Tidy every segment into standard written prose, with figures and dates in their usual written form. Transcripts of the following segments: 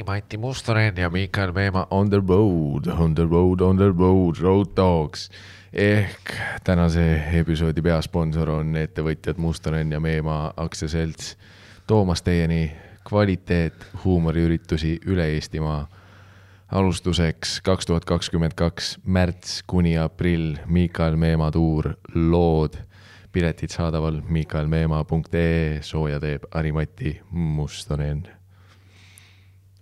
Mati Mustonen ja Mikael Meemaa on the road, Road Dogs. Ehk tänase episoodi peasponsor on ettevõtjad Mustonen ja Meemaa aktsiaselts toomas teieni kvaliteet huumoriüritusi üle Eestimaa. Alustuseks 2022 märts kuni aprill Mikael Meemaa tuur lood. Piletid saadaval mikaelmeemaa.ee, sooja teeb Mati Mustonen.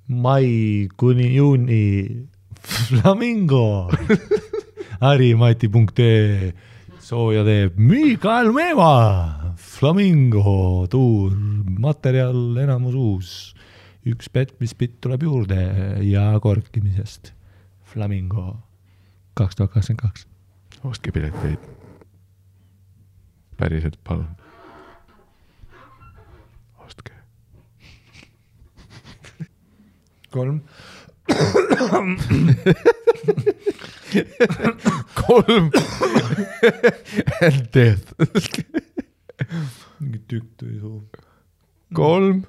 Mai kuni juuni Flamingo Mati.ee, sooja teeb Mikael Meemaa. Flamingo tuur, materjal enamus uus. Üks petmispitt tuleb juurde ja korkimisest. Flamingo 2022. Ostke pileteid. Päriselt palun. Ostke. 3 and death. Mingi tükk tuli suu. 3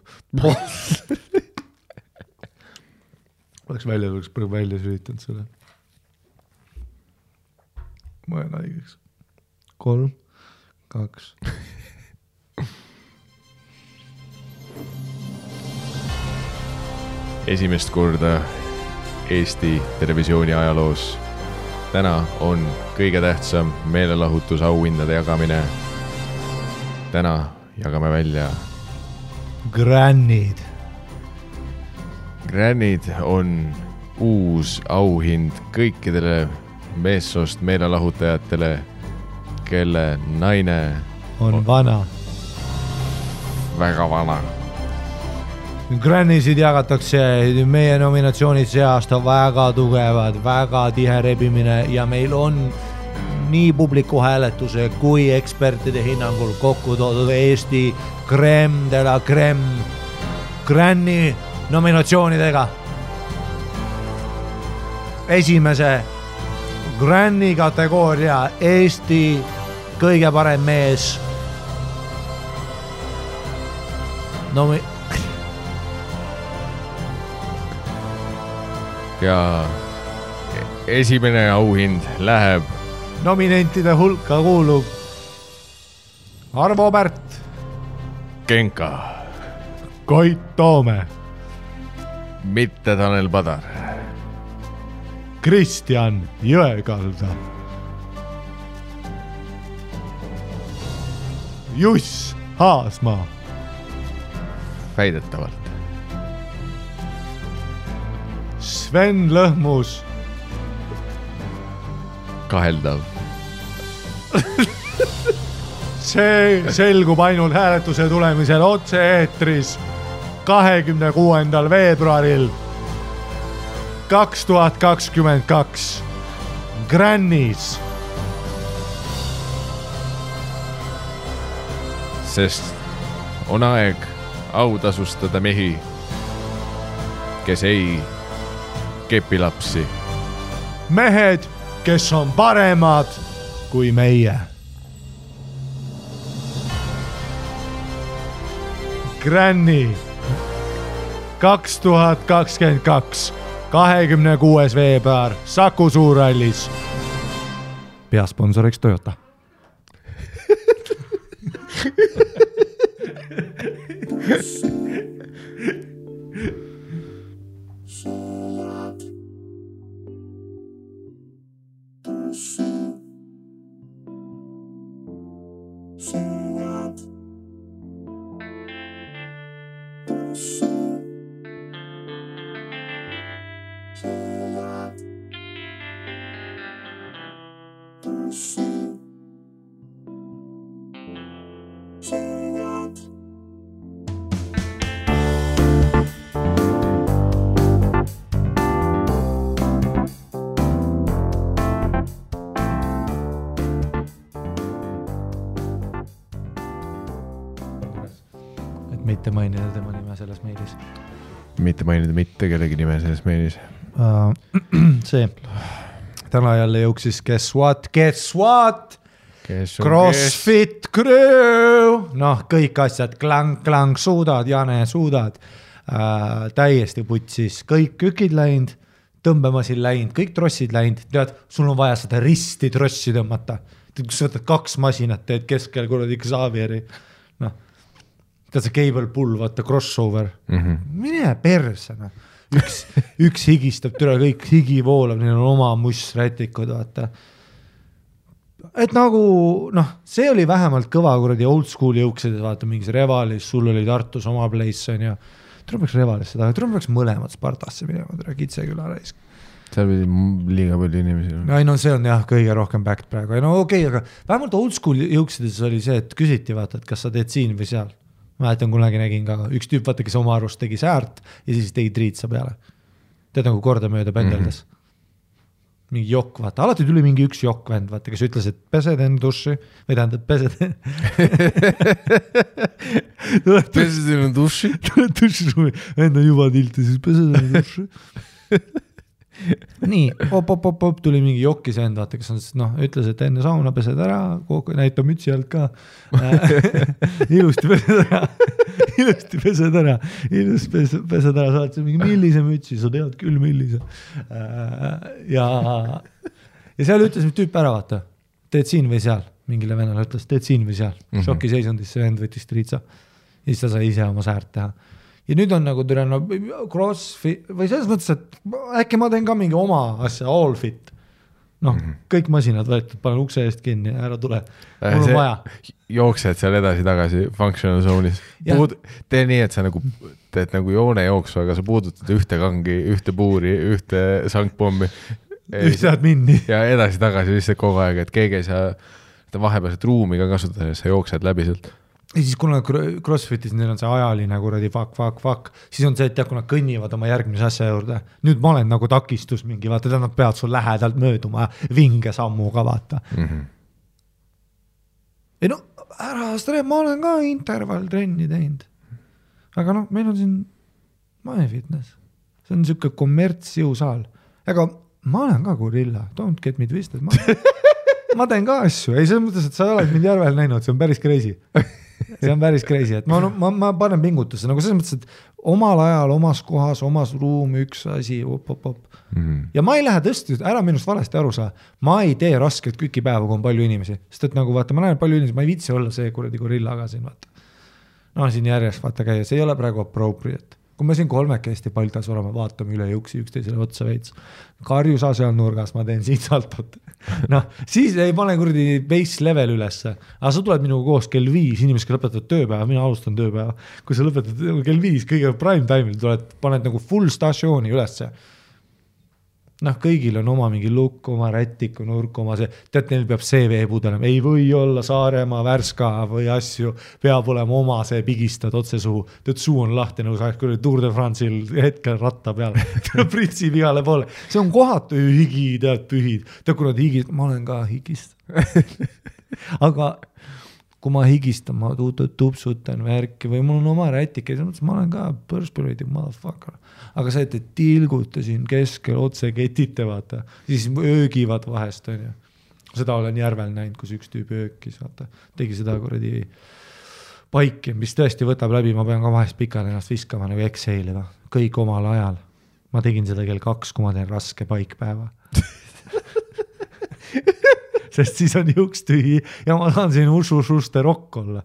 oleks välja sülitanud selle. Ma olen haigeks. 3 2 Esimest korda Eesti televisiooni ajaloos. Täna on kõige tähtsam meelelahutusauhindade jagamine. Täna jagame välja Grannid. Grannid on uus auhind kõikidele meessoost meelelahutajatele, kelle naine on vana. Väga vana. Grannisid jagatakse, meie nominatsioonid see aasta väga tugevad, väga tihe rebimine ja meil on nii publiku hääletuse kui ekspertide hinnangul kokku toodud Eesti crème de la crème Granni nominatsioonidega. Esimese Granni kategooria Eesti kõige parem mees. Ja esimene auhind läheb nominentide hulka kuulub Arvo Pärt, Genka, Koit Toome, mitte Tanel Padar, Kristjan Jõekalda, Juss Haasmaa, väidetavalt Sven Lõhmus, kaheldav. See selgub ainult hääletuse tulemisel otse-eetris 26. veebruaril 2022 Grannis. Sest on aeg autasustada mehi, kes ei kepilapsi. Mehed, kes on paremad kui meie. Granni 2022 26. veebruar Saku Suurhallis. Peasponsoriks Toyota. Mitte mainida tema nime selles meilis. Mitte mainida mitte kellegi nime selles meilis. See. Täna jälle jõuksis Guess What? CrossFit Crew. Noh, kõik asjad. Klang, suudad, Jane, suudad. täiesti putsis, kõik kükid läinud, tõmbemasin läinud, kõik trossid läinud, tead, sul on vaja seda risti trossi tõmmata. Kus sa võtad 2 masinat, teed keskel kuradi Xavieri, noh, tead see cable pull, vaata crossover, mine perse, noh. Üks higistab, türa kõik higi voolab, neil on oma mussrätikud, vaata. Et nagu, noh, see oli vähemalt kõva kuradi old school jõuksides, vaata mingis Revalis, sul oli Tartus oma place on ja tuleb Revalisse taga, tuleb mõlemad Spartasse minema, tere Kitseküla raisk. Seal pidi liiga palju inimesi. Ei no see on jah kõige rohkem backed praegu. No okei, aga vähemalt old school jõuksides oli see, et küsiti vaata, et kas sa teed siin või seal. Ma jätan kunagi nägin ka üks tüüp, vaata, kes oma arust tegi säärt ja siis tegi triitsa peale. Tead nagu korda mööda pendeldas. Mingi jokk, vaata, alati tuli mingi üks jokk vend, vaata, kes ütles, et pesed enne duši, või tähendab, pesed enne duši? Duši, enda juba tilti, siis pesed enne duši. Nii, op, tuli mingi jokkis vend, vaata, kes on, noh, ütles, et enne sauna pesed ära, näitab mütsi alt ka. Ilusti pesed ära, saad see mingi millise mütsi, sa tead küll millise. Ja seal ütles tüüp ära, vaata, teed siin või seal, mingile vennale ütles, teed siin või seal. Šoki seisundis see vend võttis triitsa ja siis ta sai ise oma säärt teha. Ja nüüd on nagu türa crossfit või selles mõttes, et äkki ma teen ka mingi oma asja, all fit. Noh, kõik masinad võetud, panen ukse eest kinni ja ära tule. Mul on vaja. Jooksed seal edasi-tagasi functional zone'is. Tee nii, et sa nagu teed nagu joone jooksu, aga sa puudutad ühte kangi, ühte puuri, ühte sangpommi. Ühte minni. Ja edasi-tagasi lihtsalt kogu aeg, et keegi ei saa vahepealset ruumi ka kasutada, sa jooksed läbi sealt. Ja siis kuna CrossFitis neil on see ajaline kuradi fuck, siis on see, et kui nad kõnnivad oma järgmise asja juurde. Nüüd ma olen nagu takistus mingi, vaata, nad peavad sul lähedalt mööduma vinge sammuga, vaata. Ei no, ära stre, ma olen ka intervalltrenni teinud. Aga noh, meil on siin MyFitness. See on siuke kommertsjõusaal. Aga ma olen ka gorilla, don't get me twisted. Ma teen ka asju, ei selles mõttes, et sa oled mind järvel näinud, see on päris crazy. See on päris crazy, et ma panen pingutusse, nagu selles mõttes, et omal ajal, omas kohas, omas ruum, üks asi, op. Ja ma ei lähe tõesti, ära minust valesti aru saa, ma ei tee rasket kükipäeva, kui on palju inimesi, sest et nagu vaata, ma näen palju inimesi, ma ei vitsi olla see kuradi gorillaga siin, vaata. No siin järjest vaata käia, see ei ole praegu appropriate. Kui me siin kolmekesti paltas olema, vaatame üle jõuksi üksteisele otsa veits. Karjusa seal nurgas, ma teen siit saltot. Noh, siis ei pane kuradi base level ülesse. Aga sa tuled minuga koos kell 5, inimesed lõpetavad tööpäeva, mina alustan tööpäeva. Kui sa lõpetad kell 5, kõige prime time'il tuled, paned nagu full stasjooni ülesse. Noh, kõigil on oma mingi lukk, oma rättiku, nurk, oma see, tead, neil peab CV-pudelema, ei või olla Saaremaa, Värska või asju, peab olema oma see pigistad otse suhu, tead, suu on lahti, nagu sa kui Tour de France'il hetkel ratta peal, pritsib igale poole, see on kohatu higi, tead, pühid, tead, kui nad higist, ma olen ka higist, aga kui ma higistan, ma tupsutan värki või mul on oma rätike, ma olen ka perspirated motherfucker. Aga see, et tilgutasin keskel otse ketite, vaata, siis öögivad vahest, on ju. Seda olen järvel näinud, kus üks tüüp öökis, vaata, tegi seda kuradi paiki, mis tõesti võtab läbi, ma pean ka vahest pikalt ennast viskama nagu exhale'iga, kõik omal ajal. Ma tegin seda kell 2, kui ma teen raske paikpäeva. Sest siis on juks tühi ja ma saan siin ususte rokk olla.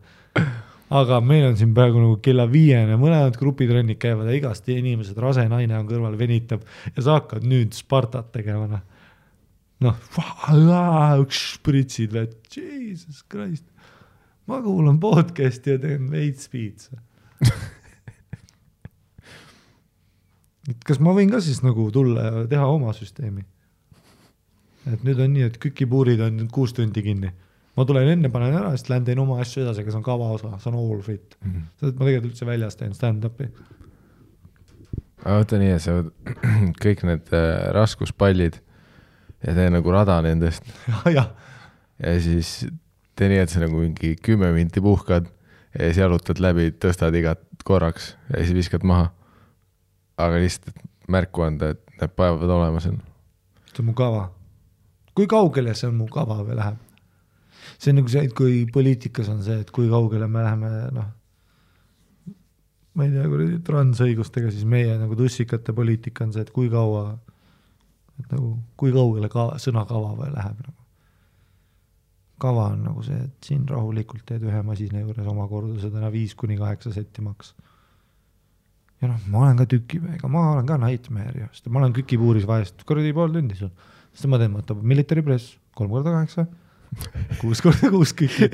Aga meil on siin praegu nagu kella 5, mõlemad grupitrennid käivad ja igast inimesed, rase naine on kõrval, venitab ja sa hakkad nüüd Spartat tegema. Noh, pritsid, Jesus Christ. Ma kuulan podcasti ja teen veits piitsa. Kas ma võin ka siis nagu tulla ja teha oma süsteemi? Et nüüd on nii, et kükipuurid on 6 tundi kinni. Ma tulen enne, panen ära, sest lähen teen oma asju edasi, aga see on kava osa, see on all fit. Sest ma tegelikult üldse väljas teen stand-upi. Võta nii, et sa kõik need raskuspallid ja tee nagu rada nendest. Ja siis tee nii, et sa nagu mingi 10 minti puhkad ja siis jalutad läbi, tõstad igat korraks ja siis viskad maha. Aga lihtsalt märku anda, et need päevad olema seal. See on mu kava. Kui kaugele see on mu kava või läheb? See on nagu see, et kui poliitikas on see, et kui kaugele me läheme, noh, ma ei tea, transõigustega, siis meie nagu tussikate poliitika on see, et kui kaua, et nagu, kui kaugele sõna kava või läheb nagu. Kava on nagu see, et siin rahulikult teed ühe masina juures oma kordused 5-8 setti maks. Ja noh, ma olen ka tükimeega, ma olen ka nightmare, sest ma olen kükipuuris vahest, kordi pool tundi sul. Sest ma teen, võtab military press 3x8, 6x6 kükid.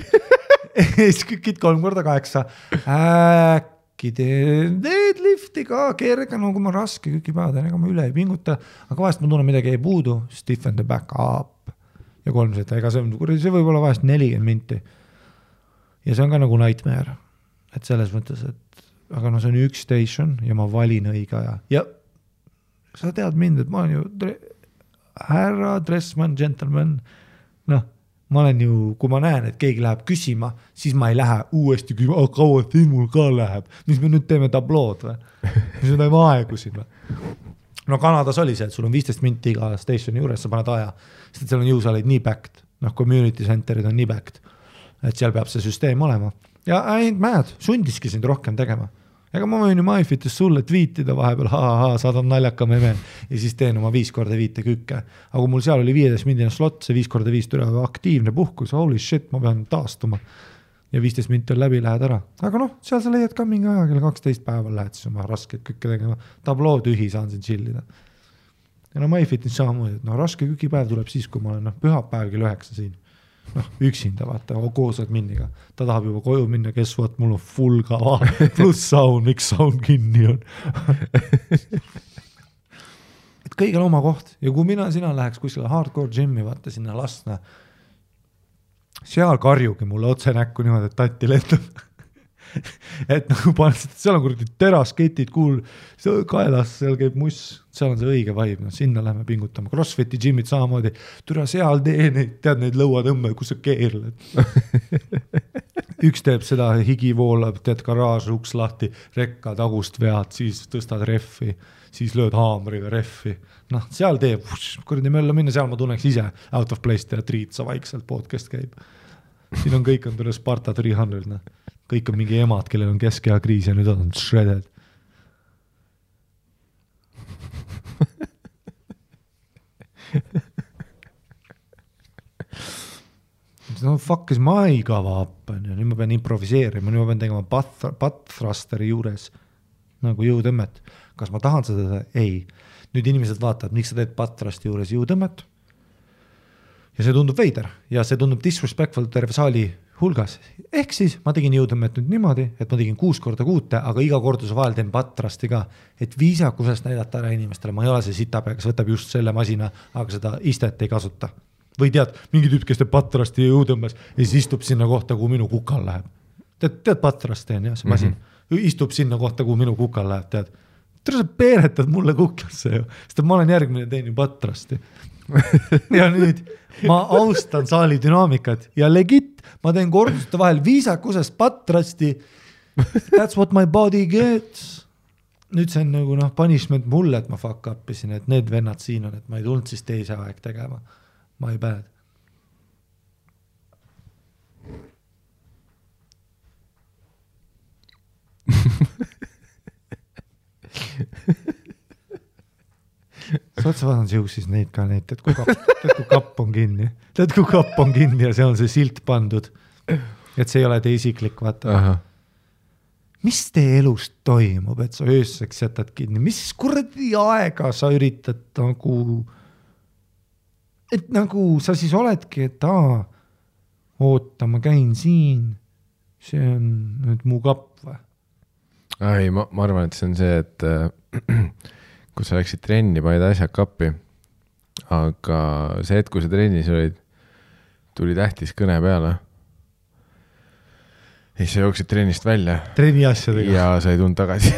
Kükid 3x8. Äkki deadlifti ka kerge, no kui ma raske kükipäevad, ega ma üle ei pinguta, aga vahest ma tunnen midagi ei puudu, stiffen the back up ja 3 seta, ega see võib olla vahest 40 minti. Ja see on ka nagu nightmare, et selles mõttes, et aga no see on üks station ja ma valin õige aja. Ja sa tead mind, et ma olen ju härra, dressman, gentleman, noh, ma olen ju, kui ma näen, et keegi läheb küsima, siis ma ei lähe uuesti küsima, kaua siin mul ka läheb, mis me nüüd teeme tablood või? Mis me teeme aegu siin või? No Kanadas oli see, et sul on 15 minti iga stationi juures, sa paned aja, sest seal on jõusaaleid nii backed, noh, community centerid on nii backed, et seal peab see süsteem olema. Ja ainult mad, sundiski sind rohkem tegema. Ega ma võin ju MyFitis sulle tweetida vahepeal, saadan naljaka meme ja siis teen oma 5x5 kükke. Aga mul seal oli 15 mindine slot, see 5x5 türa aktiivne puhkus, holy shit, ma pean taastuma. Ja 15 minti on läbi, lähed ära. Aga noh, seal sa leiad ka mingi aja, kelle 12 päeval lähed siis oma rasket kükke tegema. Tabloo tühi saan siin chillida. Ja no MyFitis samamoodi, et no raske kükipäev tuleb siis, kui ma olen pühapäev kell 9 siin. Noh, üksinda vaata, koosad minniga. Ta tahab juba koju minna, kes vaat, mul on full kava, pluss sound, miks sound kinni on. Et kõigil oma koht. Ja kui sina läheks kuskile hardcore gym'i, vaata sinna lasna, seal karjugi mulle otse näkku niimoodi, et tatti lendab. Et nagu paned, seal on kuradi terasketid, kaelas, seal käib muss, seal on see õige vibe, no sinna lähme pingutama. Crossfiti gym'id samamoodi, türa seal tee neid, tead neid lõuatõmme, kus sa keerled. Üks teeb seda, higi voolab, teed garaaž, uks lahti, rekka tagust vead, siis tõstad reffi, siis lööd haamriga reffi. Noh, seal teeb, kuradi mölla minna, seal ma tunneks ise out of place teha triitsa vaikselt, podcast käib. Siin on kõik on tule Sparta 300, noh. Kõik on mingi emad, kellel on keskeha kriis ja nüüd on shredded. No fuck is my kava up, nüüd ma pean improviseerima, nüüd ma pean tegema butt thrusteri juures nagu jõutõmmet. Kas ma tahan seda? Ei. Nüüd inimesed vaatavad, miks sa teed butt thrusteri juures jõutõmmet ja see tundub veider ja see tundub disrespectful terve saali hulgas. Ehk siis ma tegin jõutõmmet nüüd niimoodi, et ma tegin 6x6, aga iga korduse vahel teen pattrasti ka, et viisakusest näidata ära inimestele. Ma ei ole see sitapea, kes võtab just selle masina, aga seda istet ei kasuta. Või tead, mingi tüüp, kes teeb pattrasti ja jõutõmbes ja siis istub sinna kohta, kuhu minu kukal läheb. Tead pattrasti on jah, see masin. Istub sinna kohta, kuhu minu kukal läheb, tead. Sa peeretad mulle kuklasse ju, sest ma olen järgmine teen ju pattrasti. Ja nüüd ma austan saali dünaamikat ja legit, ma teen korduste vahel viisakusest patrasti. That's what my body gets. Nüüd see on nagu punishment mulle, et ma fuck upisin, et need vennad siin on, et ma ei tulnud siis teise aeg tegema. My bad. Sa otsa vaadanud jõusis neid ka neid, tead kui kapp on kinni. Tead kui kapp on kinni ja see on see silt pandud. Et see ei ole te isiklik, vaata. Aha. Mis tee elust toimub, et sa ööseks jätad kinni? Mis kuradi aega sa üritad nagu... Et nagu sa siis oledki, et oota, ma käin siin. See on nüüd mu kapp või? Ei, ma arvan, et see on see, et... kui sa läksid trenni, panid asjad kappi, aga see, et kui sa trennis olid, tuli tähtis kõne peale. Ja siis sa jooksid trennist välja. Trenni asjadega. Ja sa ei tulnud tagasi.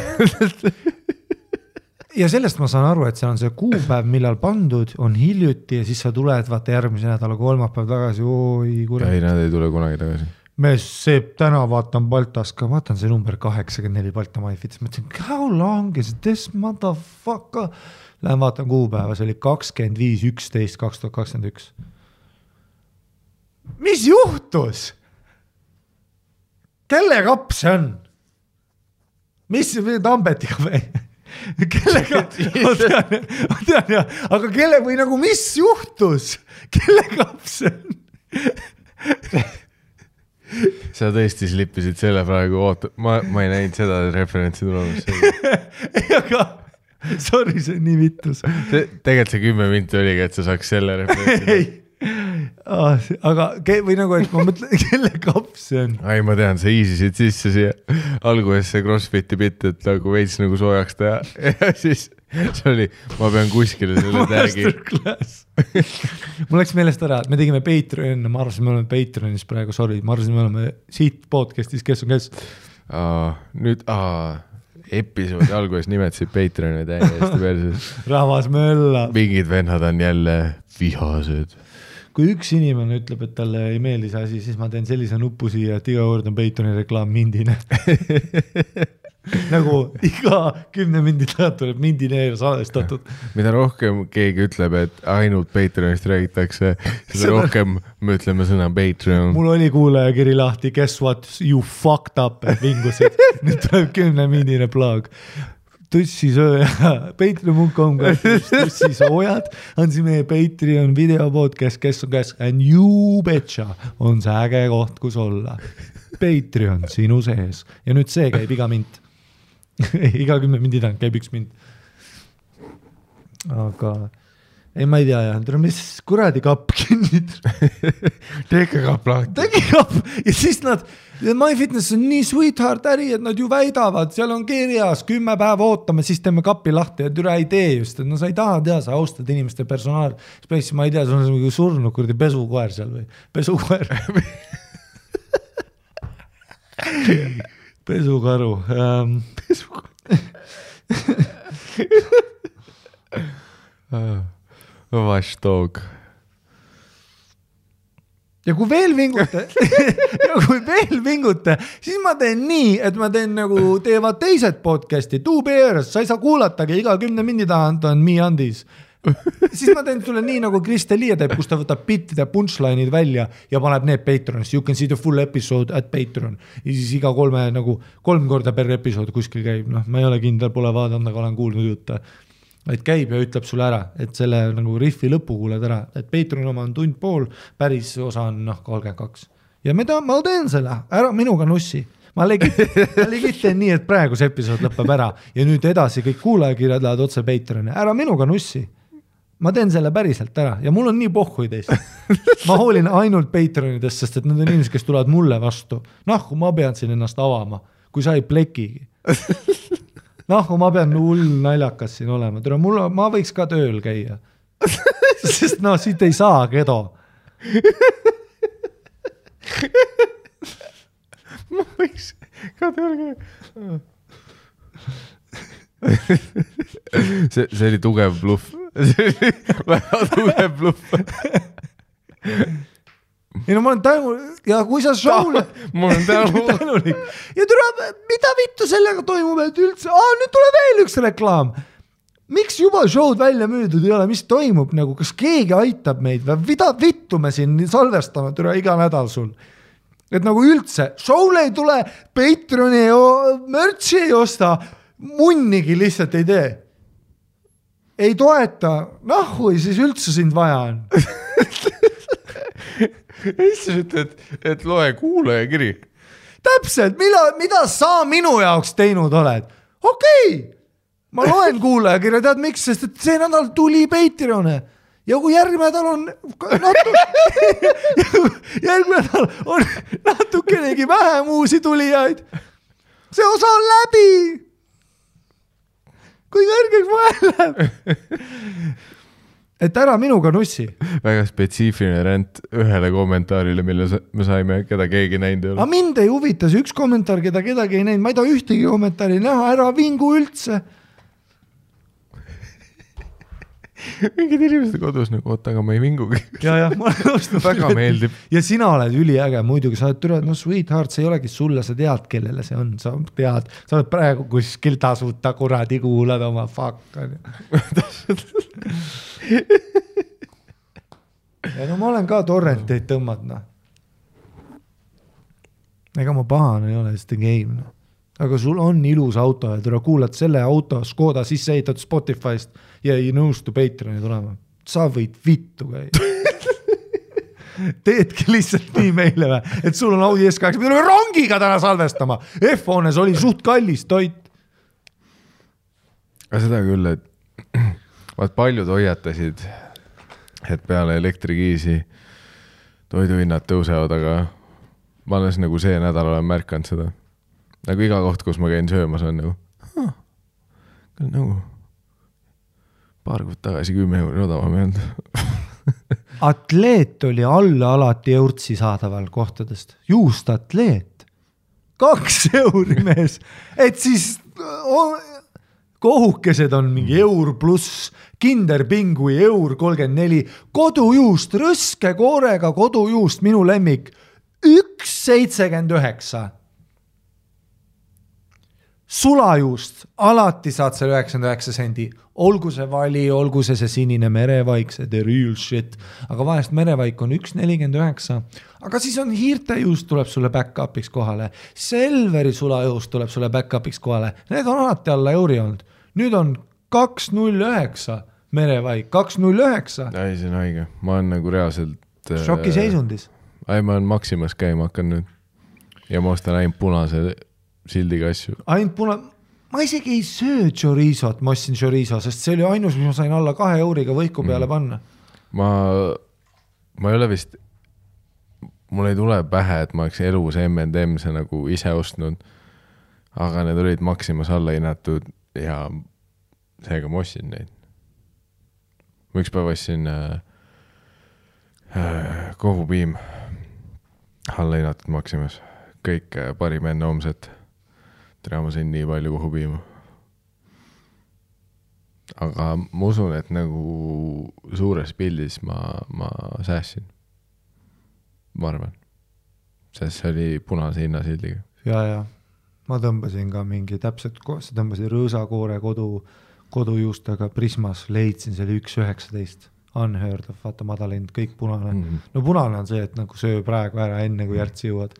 Ja sellest ma saan aru, et see on see kuupäev, millal pandud, on hiljuti ja siis sa tuled vaata järgmise nädala kolmapäev tagasi. Ei, nad ei tule kunagi tagasi. Me see täna vaatan Baltas ka, vaatan see number 84 Balta MyFitis, mõtlesin, how long is this motherfucker? Lähen vaatan kuupäeva, see oli 25.11.2021. Mis juhtus? Kelle kapp see on? mis Tambetiga või? Kellega? Ma tean ja, aga kelle või nagu mis juhtus? Kelle kaps see on? Sa tõesti slippisid selle praegu, ma ei näinud seda referentsi tulemas. Ei, aga sorry, see on nii vittus. Tegelikult see 10 minti oligi, et sa saaks selle referentsi. Ei. Aga või nagu, et ma mõtlen, kelle kaps see on? Ai, ma tean, sa easisid sisse siia alguses see CrossFiti bitt, et nagu veits nagu soojaks teha ja siis see oli, ma pean kuskile selle tagi. Mul läks meelest ära, et me tegime Patreon, ma arvasin, me oleme Patreonis praegu, sorry, ma arvasin, me oleme siit podcastis, kes on kes. Nüüd, episoodi alguses nimetasid Patreoni täiesti perses. Rahvas mölla. Mingid vennad on jälle vihased. Kui üks inimene ütleb, et talle ei meeldi see asi, siis ma teen sellise nupu siia, et iga kord on Patreoni reklaam mindine. Nagu iga 10 minti tagant tuleb mindineer salvestatud. Mida rohkem keegi ütleb, et ainult Patreonist räägitakse, seda rohkem me ütleme sõna Patreon. Mul oli kuulajakiri lahti, guess what, you fucked up, et vingusid. Nüüd tuleb 10 mindine plaag. Tussisööja, patreon.com, tussisoojad on see meie Patreon videopodcast, kes on kes, and you betcha on see äge koht, kus olla. Patreon sinu sees. Ja nüüd see käib iga mint. Iga 10 mindi tagant käib üks mint. Aga ei, ma ei tea jah, mis kuradi kapp kinnid. Tege kapp lahti. Tege kapp ja siis nad, MyFitness on nii sweetheart äri, et nad ju väidavad, seal on kirjas 10 päeva ootame, siis teeme kappi lahti ja türa ei tee just, et no sa ei taha tea, sa austad inimeste personaal. Space, ma ei tea, sul on mingi surnud kurdi pesukoer seal või? Pesukoer. Pesukaru. Watchdog. Ja kui veel vingute, siis ma teen nii, et ma teen nagu teevad teised podcasti, Bears, sa ei saa kuulatagi, iga 10 mindi tagant on Me Andis. Siis ma teen sulle nii nagu Kristelia teeb, kus ta võtab bittide punchline'id välja ja paneb need Patreonis. You can see the full episode at Patreon. Ja siis iga 3 korda per episood kuskil käib. No, ma ei ole kindel, pole vaadanud, aga olen kuulnud jutte. Et käib ja ütleb sulle ära, et selle nagu riffi lõpu kuuled ära. Et Patreon oma on tund pool, päris osa on 32. Ja ma teen selle, ära minuga nussi. Ma legit teen nii, et praegu see episood lõpeb ära ja nüüd edasi kõik kuulajakirjad lähevad otse Patreoni. Ära minuga nussi. Ma teen selle päriselt ära ja mul on nii pohhui teist. Ma hoolin ainult Patreonidest, sest et need on inimesed, kes tulevad mulle vastu. Kui ma pean siin ennast avama, kui sa ei plekigi. Ma pean hull naljakas siin olema. Ma võiks ka tööl käia. Sest siit ei saa kedo. Ma võiks ka tööl käia. See oli tugev bluff. See oli väga tugev bluff. Ei no ma olen tänulik ja kui sa show'le ma olen tänulik ja mida vittu sellega toimub, et üldse nüüd tuleb veel üks reklaam. Miks juba show'd välja müüdud ei ole, mis toimub nagu, kas keegi aitab meid või mida vittu me siin salvestame iga nädal sul, et nagu üldse show'le ei tule, Patreoni merch'i ei osta, munnigi lihtsalt ei tee, ei toeta, nahui siis üldse sind vaja on. Siis ütled, et loe kuulajakiri. Täpselt, mida sa minu jaoks teinud oled? Okei, ma loen kuulajakirja, tead miks, sest et see nädal tuli Patreone ja kui järgmine nädal on natukenegi vähem uusi tulijaid, see osa on läbi. Kui kõrgeks vahel läheb. Et ära minuga nussi. Väga spetsiifiline rent ühele kommentaarile, mille me saime, keda keegi näinud ei ole. Aga mind ei huvita see üks kommentaar, keda kedagi ei näinud. Ma ei taha ühtegi kommentaari näha, ära vingu üldse. Mingid inimesed kodus nagu, aga ma ei vingugi. Ja, ma olen väga meeldib. Ja sina oled üliäge, muidugi sa oled türad, sweetheart, see ei olegi sulle, sa tead, kellele see on, sa tead, sa oled praegu kuskil tasuta kuradi kuulad oma fuck. Ja no ma olen ka torrenteid tõmmadna. Ega ma pahan ei ole, sest game. aga sul on ilus auto ja tule kuulad selle auto Škoda sisse ehitatud Spotify'st ja ei nõustu Patreoni tulema. Sa võid vittu käia. Teedki lihtsalt nii meile või, et sul on Audi S8, me tuleme rongiga täna salvestama. F-hoones oli suht kallis toit. Aga seda küll, et vaat paljud hoiatasid, et peale elektrikiisi toiduhinnad tõusevad, aga ma alles nagu see nädal olen märkanud seda. Nagu iga koht, kus ma käin söömas on nagu paar kuud tagasi 10 euri odavam jäänud. Atleet oli alla alati eurtsi saadaval kohtadest. Juust atleet. 2 euri mees. Et siis kohukesed on mingi eur pluss, kinderpingui eur 34, kodujuust, rõske koorega kodujuust, minu lemmik, 1,79. Sulajuust, alati saad selle 99 sendi, olgu see vali, olgu see sinine merevaik, see the real shit, aga vahest merevaik on 1,49, aga siis on hiirtejuust tuleb sulle back-upiks kohale, Selveri sulajuust tuleb sulle back-upiks kohale, need on alati alla euri olnud, nüüd on 2,09 merevaik, 2,09. Ei, see on haige, ma olen nagu reaalselt šoki seisundis. Ei, ma olen Maximas käima hakkan nüüd ja ma ostan ainult punase sildiga asju. Ma isegi ei söö chorizot, ma ostsin chorizo, sest see oli ainus, mis ma sain alla 2 euriga võiku peale panna. Ma ei ole vist, mul ei tule pähe, et ma oleks elus M&M's nagu ise ostnud, aga need olid Maximas alla hinnatud ja seega ma ostsin neid. Ma üks päev ostsin kohupiim alla hinnatud Maximas. Kõik parim enne homset. Tere, ma sain nii palju kohupiima. Aga ma usun, et nagu suures pildis ma säässin. Ma arvan. Sest see oli punase hinnasildiga. Ja. Ma tõmbasin ka mingi täpselt, sa tõmbasin rõõsakoore kodujuustega Prismas, leidsin selle 1,19. Unheard of, vaata madalend, kõik punane. No punane on see, et nagu söö praegu ära enne, kui järtsi jõuad.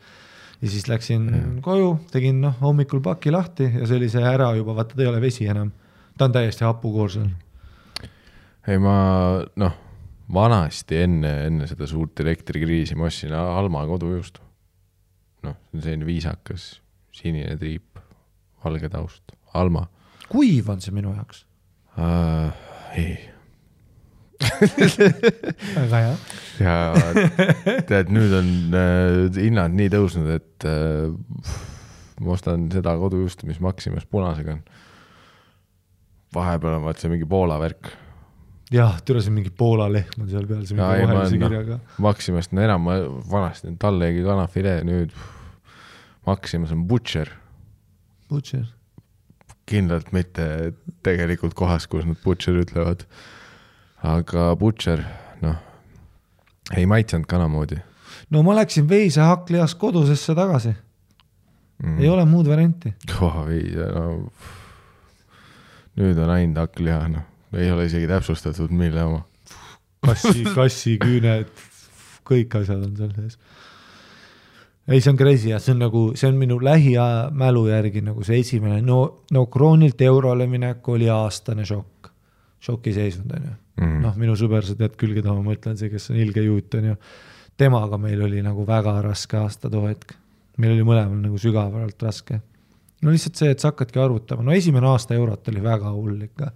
Ja siis läksin koju, tegin hommikul paki lahti ja see oli see ära juba, vaata ta ei ole vesi enam. Ta on täiesti hapukoorsul. Ei, ma vanasti enne seda suurt elektrikriisi ma ostsin Alma kodujuustu. See on selline viisakas, sinine triip, valge taust. Alma. Kuiv on see minu jaoks? Ei. Väga hea. Ja tead, nüüd on hinnad nii tõusnud, et ma ostan seda kodujuustu, mis Maximas punasega on. Vahepeal on vaat see mingi Poola värk. Jah, türasin mingi Poola lehm on seal peal, see mingi vahelise kirjaga. Maximast on enam, ma vanasti tallegi kanafilee, nüüd Maximas on Butcher. Butcher? Kindlalt mitte tegelikult kohas, kus nad Butcher ütlevad. Aga Butcher, ei maitsenud kanamoodi. No ma läksin veise hakklias kodusesse tagasi. Ei ole muud varianti. Veise, nüüd on ainult hakkliha, ei ole isegi täpsustatud, mille oma. Kassi, küüned, kõik asjad on seal sees. Ei, see on crazy ja see on minu lähimälu järgi nagu see esimene. No kroonilt eurole minek oli aastane šokk. Šoki seisund on ju. Minu sõber, sa tead küll, keda ma mõtlen, see, kes on ilge juut on ju. Temaga meil oli nagu väga raske aasta too hetk. Meil oli mõlemal nagu sügavalt raske. No lihtsalt see, et sa hakkadki arvutama. No esimene aasta eurot oli väga hull ikka.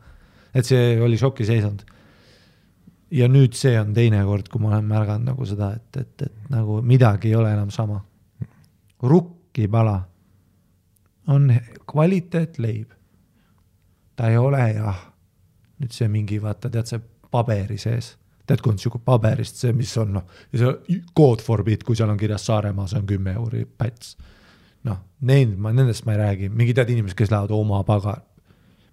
Et see oli šoki seisund. Ja nüüd see on teine kord, kui ma olen märganud nagu seda, et nagu midagi ei ole enam sama. Rukkipala on kvaliteet leib. Ta ei ole nüüd see mingi, vaata, tead see paberi sees. Tead, kui on siuke paberist see, mis on, ja see code for bit, kui seal on kirjas Saaremaa, see on 10 euri päts. Nendest ma ei räägi. Mingi tead inimesed, kes lähevad oma pagar.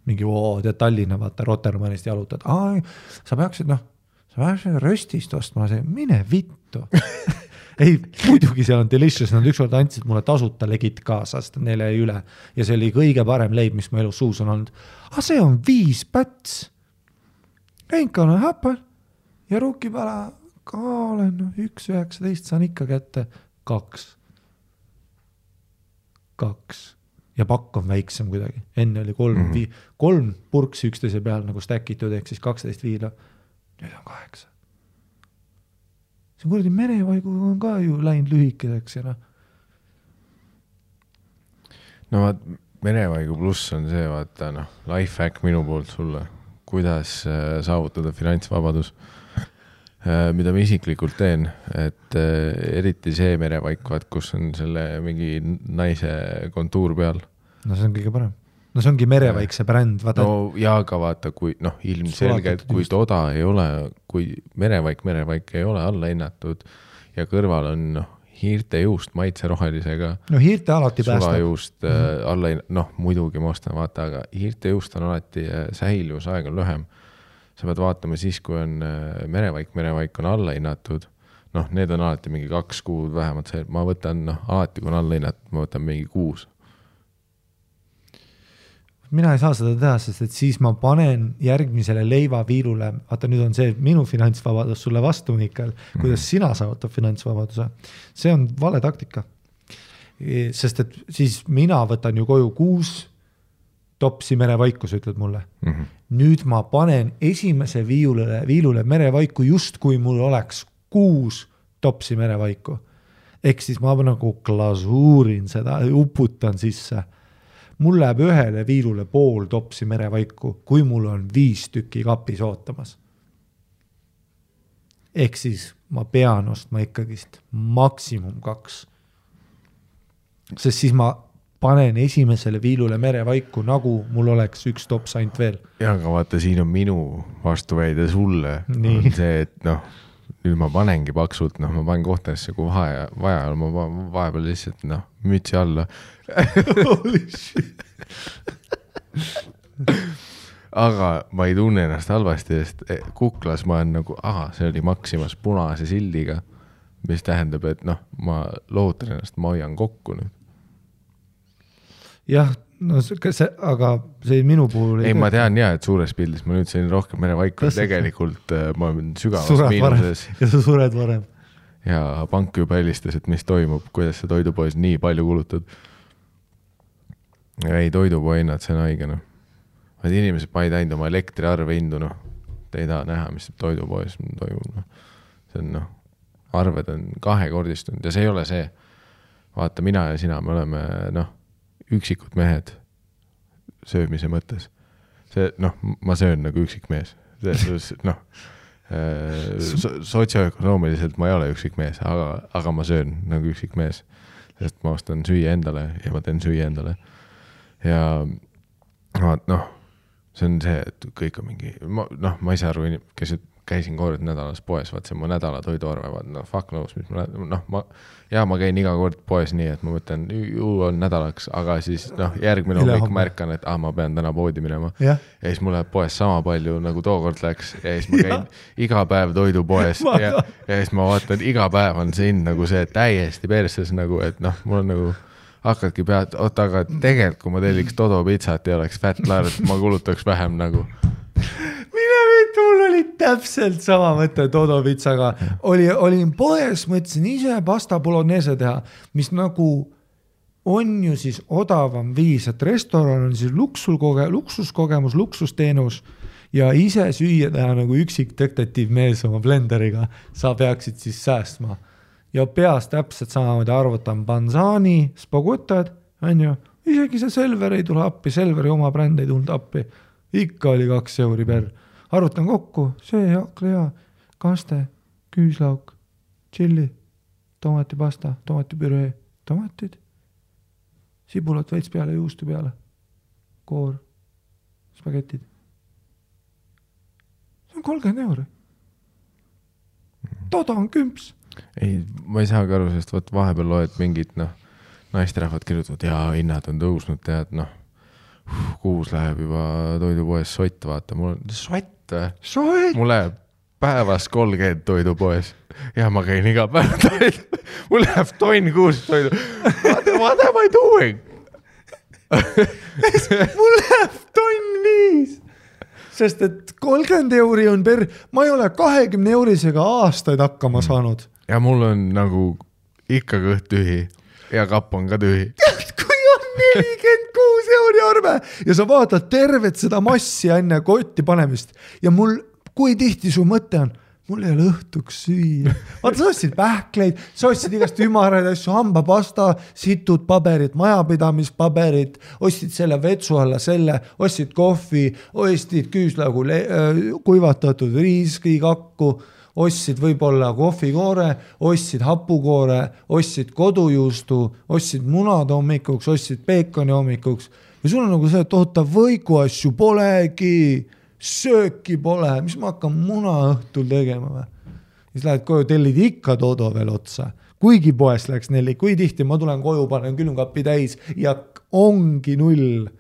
Mingi, tead Tallinna, vaata, Rotermannist jalutad. Sa peaksid röstist ostma, mine vittu. Ei, muidugi seal on delicious, nad ükskord andsid mulle tasuta legit kaasa, sest neile ei üle. Ja see oli kõige parem leib, mis mu elus suus on olnud. See on 5 päts. Enkan on häpal. Ja rukkipala ka olen 1,19 saan ikka kätte 2. ja pakk on väiksem kuidagi. Enne oli 3 purksi üksteise peal nagu stackitud, ehk siis 12 viila. Nüüd on 8. See kuradi merevaigu on ka ju läinud lühikeseks ja No vaat, merevaigu pluss on see, vaata life hack minu poolt sulle, kuidas saavutada finantsvabadus, mida ma isiklikult teen, et eriti see merevaik, kus on selle mingi naise kontuur peal. No see on kõige parem. No see ongi merevaik see bränd. No ja ka vaata, kui ilmselgelt, kui toda ei ole, kui merevaik ei ole alla hinnatud ja kõrval on hiirte juust maitse rohelisega. No hiirte alati päästab. Sulajuust alla, muidugi ma ostan, vaata, aga hiirte juust on alati säilivusaeg on lühem. Sa pead vaatama siis, kui on merevaik on alla hinnatud. Need on alati mingi 2 kuud vähemalt. Ma võtan, alati kui on alla hinnatud, ma võtan mingi 6. Mina ei saa seda teha, sest et siis ma panen järgmisele leivaviilule, vaata nüüd on see minu finantsvabadus sulle vastu, Mikael, kuidas sina saavutab finantsvabaduse. See on vale taktika. Sest et siis mina võtan ju koju 6 topsi merevaiku, sa ütled mulle. Nüüd ma panen esimese viilule merevaiku just kui mul oleks 6 topsi merevaiku. Ehk siis ma nagu glasuurin seda, uputan sisse. Mul läheb ühele viilule pool topsi merevaiku, kui mul on 5 tükki kapis ootamas. Ehk siis ma pean ostma ikkagist maksimum 2. Sest siis ma panen esimesele viilule merevaiku, nagu mul oleks 1 tops ainult veel. Ja, aga vaata, siin on minu vastuväide sulle. Nii. On see, et nüüd ma panengi paksult, ma panen kohtadesse, kui vaja, ma vahepeal lihtsalt, mütsi alla. Aga ma ei tunne ennast halvasti, sest Kuklas ma olen nagu, see oli Maximas punase sildiga, mis tähendab, et ma lootan ennast, ma hoian kokku nüüd. Jah, aga see minu puhul ei ma tean et suures pildis ma nüüd sain rohkem merevaiku, tegelikult ma olen sügavas miinuses. Ja sa sured varem. Ja pank juba helistas, et mis toimub, kuidas sa toidupoes nii palju kulutad. Ei, toidupoe hinnad, see on haigena. Vaid inimesed ma ei teinud oma elektriarve hindu, te ei taha näha, mis toidupoes toimub. See on, arved on 2-kordistunud ja see ei ole see. Vaata, mina ja sina, me oleme, üksikud mehed söömise mõttes. See, ma söön nagu üksik mees. Sotsioökonoomiliselt ma ei ole üksik mees, aga ma söön nagu üksik mees. Sest ma ostan süüa endale ja ma teen süüa endale. Ja see on see, et kõik on mingi, ma ei saa aru, kes käisin kord nädalas poes, vaat see mu nädala toiduarve, fuck knows, mis ma käin iga kord poes nii, et ma mõtlen, ju on nädalaks, aga siis järgmine hommik märkan, et ma pean täna poodi minema. Ja siis mul läheb poes sama palju, nagu tookord läks, ja siis ma käin iga päev toidupoes ja siis ma vaatan, iga päev on see nagu see täiesti perses, nagu, et mul on nagu hakkadki pead, aga tegelikult, kui ma telliks Todo pitsat ja oleks fat large, ma kulutaks vähem nagu. Mul oli täpselt sama mõte Todo pitsaga. Olin poes, mõtlesin ise pasta bolognese teha, mis nagu on ju siis odavam viis, et restoran on siis luksuskogemus, luksusteenus ja ise süüa teha nagu üksik detektiiv mees oma blenderiga. Sa peaksid siis säästma. Ja peas täpselt samamoodi arvutan Banzani, spagutad, on ju, isegi see Selver ei tule appi, Selveri oma bränd ei tulnud appi. Ikka oli 2 euri per. Arvutan kokku, see haklea, kaste, küüslauk, tšilli, tomatipasta, tomatipüree, tomatid, sibulat veits peale, juustu peale, koor, spagetid. See on 30 euri. Toda on kümps. Ei, ma ei saagi aru, sest vahepeal loed mingid, naisterahvad kirjutavad, ja hinnad on tõusnud, tead, kuus läheb juba toidupoes sott, vaata, mul on sott. Mul läheb päevas 30 toidupoes ja ma käin iga päev toidu. Mul läheb tonn kuus toidu. What am I doing? Mul läheb tonn 5. Sest et 30 euri on ma ei ole 20 eurisega aastaid hakkama saanud. Ja mul on nagu ikka kõht tühi ja kapp on ka tühi. Kui on €46 arve ja sa vaatad tervet seda massi enne kotti panemist ja mul, kui tihti su mõte on, mul ei ole õhtuks süüa. Vaata, sa ostsid pähkleid, sa ostsid igast ümaraid asju, hambapasta, situd paberid, majapidamispaberid, ostsid selle vetsu alla selle, ostsid kohvi, ostsid küüslaugu kuivatatud riiskikakku, ostsid võib-olla kohvikoore, ostsid hapukoore, ostsid kodujuustu, ostsid munad hommikuks, ostsid peekoni hommikuks ja sul on nagu see, et oota, võiku asju polegi, sööki pole, mis ma hakkan muna õhtul tegema või? Siis lähed koju, tellid ikka Dodo veel otsa. Kuigi poes läks 4, kui tihti ma tulen koju, panen külmkapi täis ja ongi 0.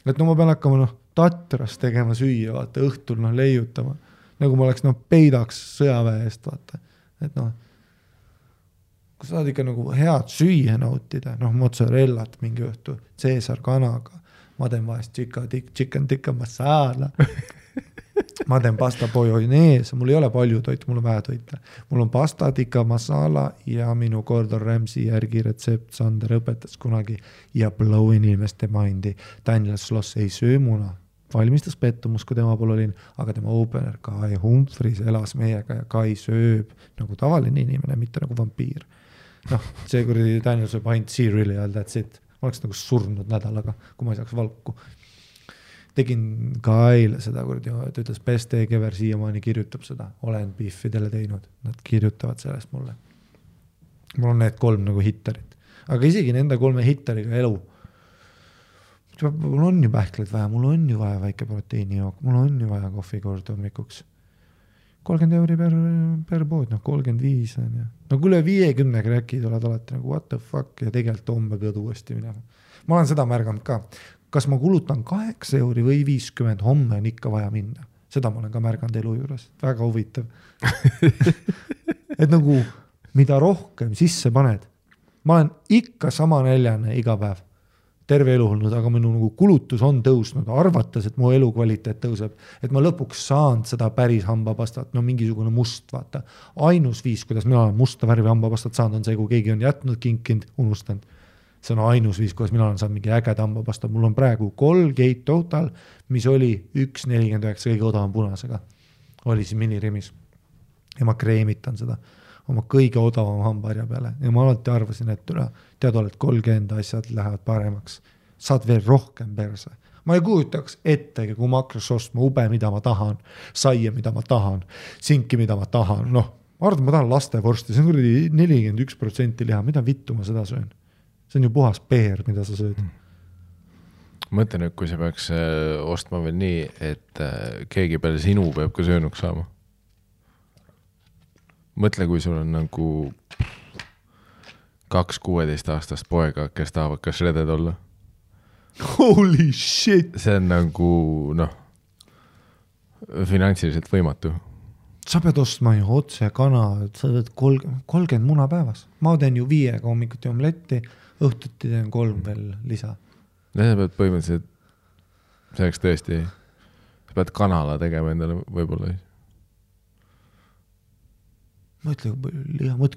Et ma pean hakkama Tatras tegema süüa, vaata, õhtul leiutama. Nagu ma oleks peidaks sõjaväe eest, vaata. Et kui sa saad ikka nagu head süüa nautida, mozzarellat mingi õhtu, Caesar kanaga, ma teen vahest chicken tikka masala, ma teen pasta bolognese, mul ei ole palju toitu, mul on vähe toita. Mul on pasta tikka masala ja minu Gordon Ramsay järgi retsept Sander õpetas kunagi ja blow inimeste mindi. Daniel Sloss ei söö muna. Valmistas pettumus, kui tema pool olin, aga tema opener Kai Humphries elas meiega ja Kai sööb nagu tavaline inimene, mitte nagu vampiir. See kuradi Daniel sööb ainult cereali all, that's it. Ma oleks nagu surnud nädalaga, kui ma ei saaks valku. Tegin Kaile seda kuradi, ta ütles, best egg ever siiamaani kirjutab seda. Olen biffidele teinud, nad kirjutavad sellest mulle. Mul on need 3 nagu hittarit. Aga isegi nende 3 hittariga elu. Mul on ju pähkleid vaja, mul on ju vaja väike proteiinijook, mul on ju vaja kohvikord hommikuks. 30 euri per pood, 35 on ja. Kui üle 50 kräkid oled alati nagu what the fuck ja tegelikult homme pead uuesti minema. Ma olen seda märganud ka. Kas ma kulutan 8 euri või 50, homme on ikka vaja minna. Seda ma olen ka märganud elu juures. Väga huvitav. Et nagu mida rohkem sisse paned. Ma olen ikka sama näljane iga päev. Terve elu olnud, aga minu nagu kulutus on tõusnud, arvates, et mu elukvaliteet tõuseb, et ma lõpuks saan seda päris hambapastat, mingisugune must, vaata. Ainus viis, kuidas mina olen musta värvi hambapastat saanud, on see, kui keegi on jätnud kinkind, unustanud. See on ainus viis, kuidas mina olen saanud mingi ägeda hambapasta. Mul on praegu Colgate Total, mis oli 1,49 kõige odavam punasega. Oli siin minirimis. Ja ma kreemitan seda oma kõige odavam hambaharja peale. Ja ma alati arvasin, et tead oled 30 asjad lähevad paremaks. Saad veel rohkem perse. Ma ei kujutaks ettegi, kui ma hakkas ostma ube, mida ma tahan, saia, mida ma tahan, sinki, mida ma tahan. Ma arvan, ma tahan lastevorsti, see on kuradi 41% liha, mida vittu ma seda söön? See on ju puhas peer, mida sa sööd. Mõtlen, et kui sa peaks ostma veel nii, et keegi peale sinu peab ka söönuks saama. Mõtle, kui sul on nagu 2 16-aastast poega, kes tahavad ka shredded olla. Holy shit! See on nagu, finantsiliselt võimatu. Sa pead ostma ju otse kana, sa teed 30 muna päevas. Ma teen ju 5 hommikuti omletti, õhtuti teen 3 veel lisa. Ja sa pead põhimõtteliselt, selleks tõesti, sa pead kanala tegema endale võib-olla. Mõtle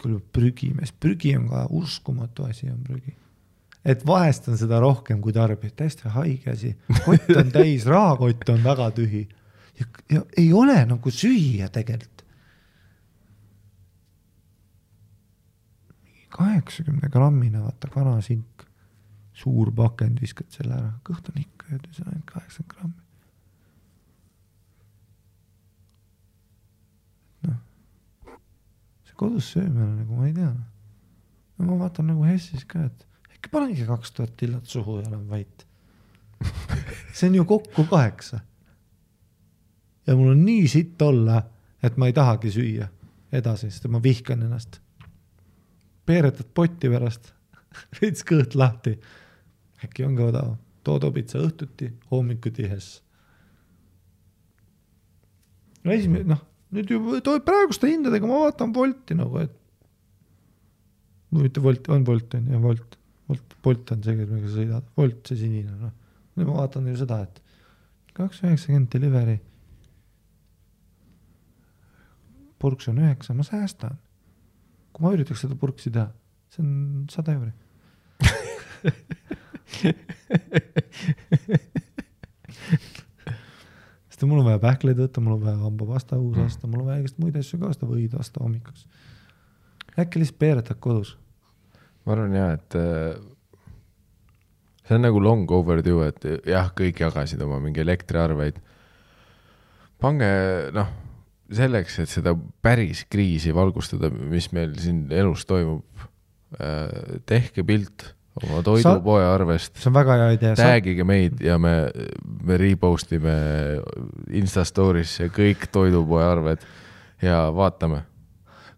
kui prügimees. Prügi on ka uskumatu asi on prügi. Et vahest on seda rohkem kui tarbib. Täiesti haige asi. Kott on täis, rahakott on väga tühi. Ja ei ole nagu süüa tegelikult. 80 grammine, vaata, kanasink. Suur pakend viskad selle ära. Kõht on ikka, see on 80 grammi. Kodus söömine, nagu ma ei tea. Ma vaatan nagu Hessis ka, et äkki panengi 2000 tillat suhu ja olen vait. See on ju kokku 8. Ja mul on nii sitt olla, et ma ei tahagi süüa edasi, sest ma vihkan ennast. Peeretad potti pärast, veits kõht lahti. Äkki on ka odav. Dodo pitsa õhtuti, hommikuti Hess. Nüüd ju praeguste hindadega ma vaatan Volti nagu, et mitte Volt, on Volt on ja Volt on see, millega sa sõidad. Volt see sinine. Nüüd ma vaatan ju seda, et 2,90 delivery. Purks on 9, ma säästan. Kui ma üritaks seda purksi teha, see on 100 euri. Sest mul on vaja pähkleid võtta, mul on vaja hambapasta uus aasta, mul on vaja igast muid asju ka aasta võid aasta hommikuks. Äkki lihtsalt peeretad kodus? Ma arvan jah, et see on nagu long overdue, et jah, kõik jagasid oma mingi elektriarveid. Pange, selleks, et seda päris kriisi valgustada, mis meil siin elus toimub, tehke pilt oma toidupoe arvest. See on väga hea idea. Tagige meid ja me repostime Instastorisse kõik toidupoe arved ja vaatame.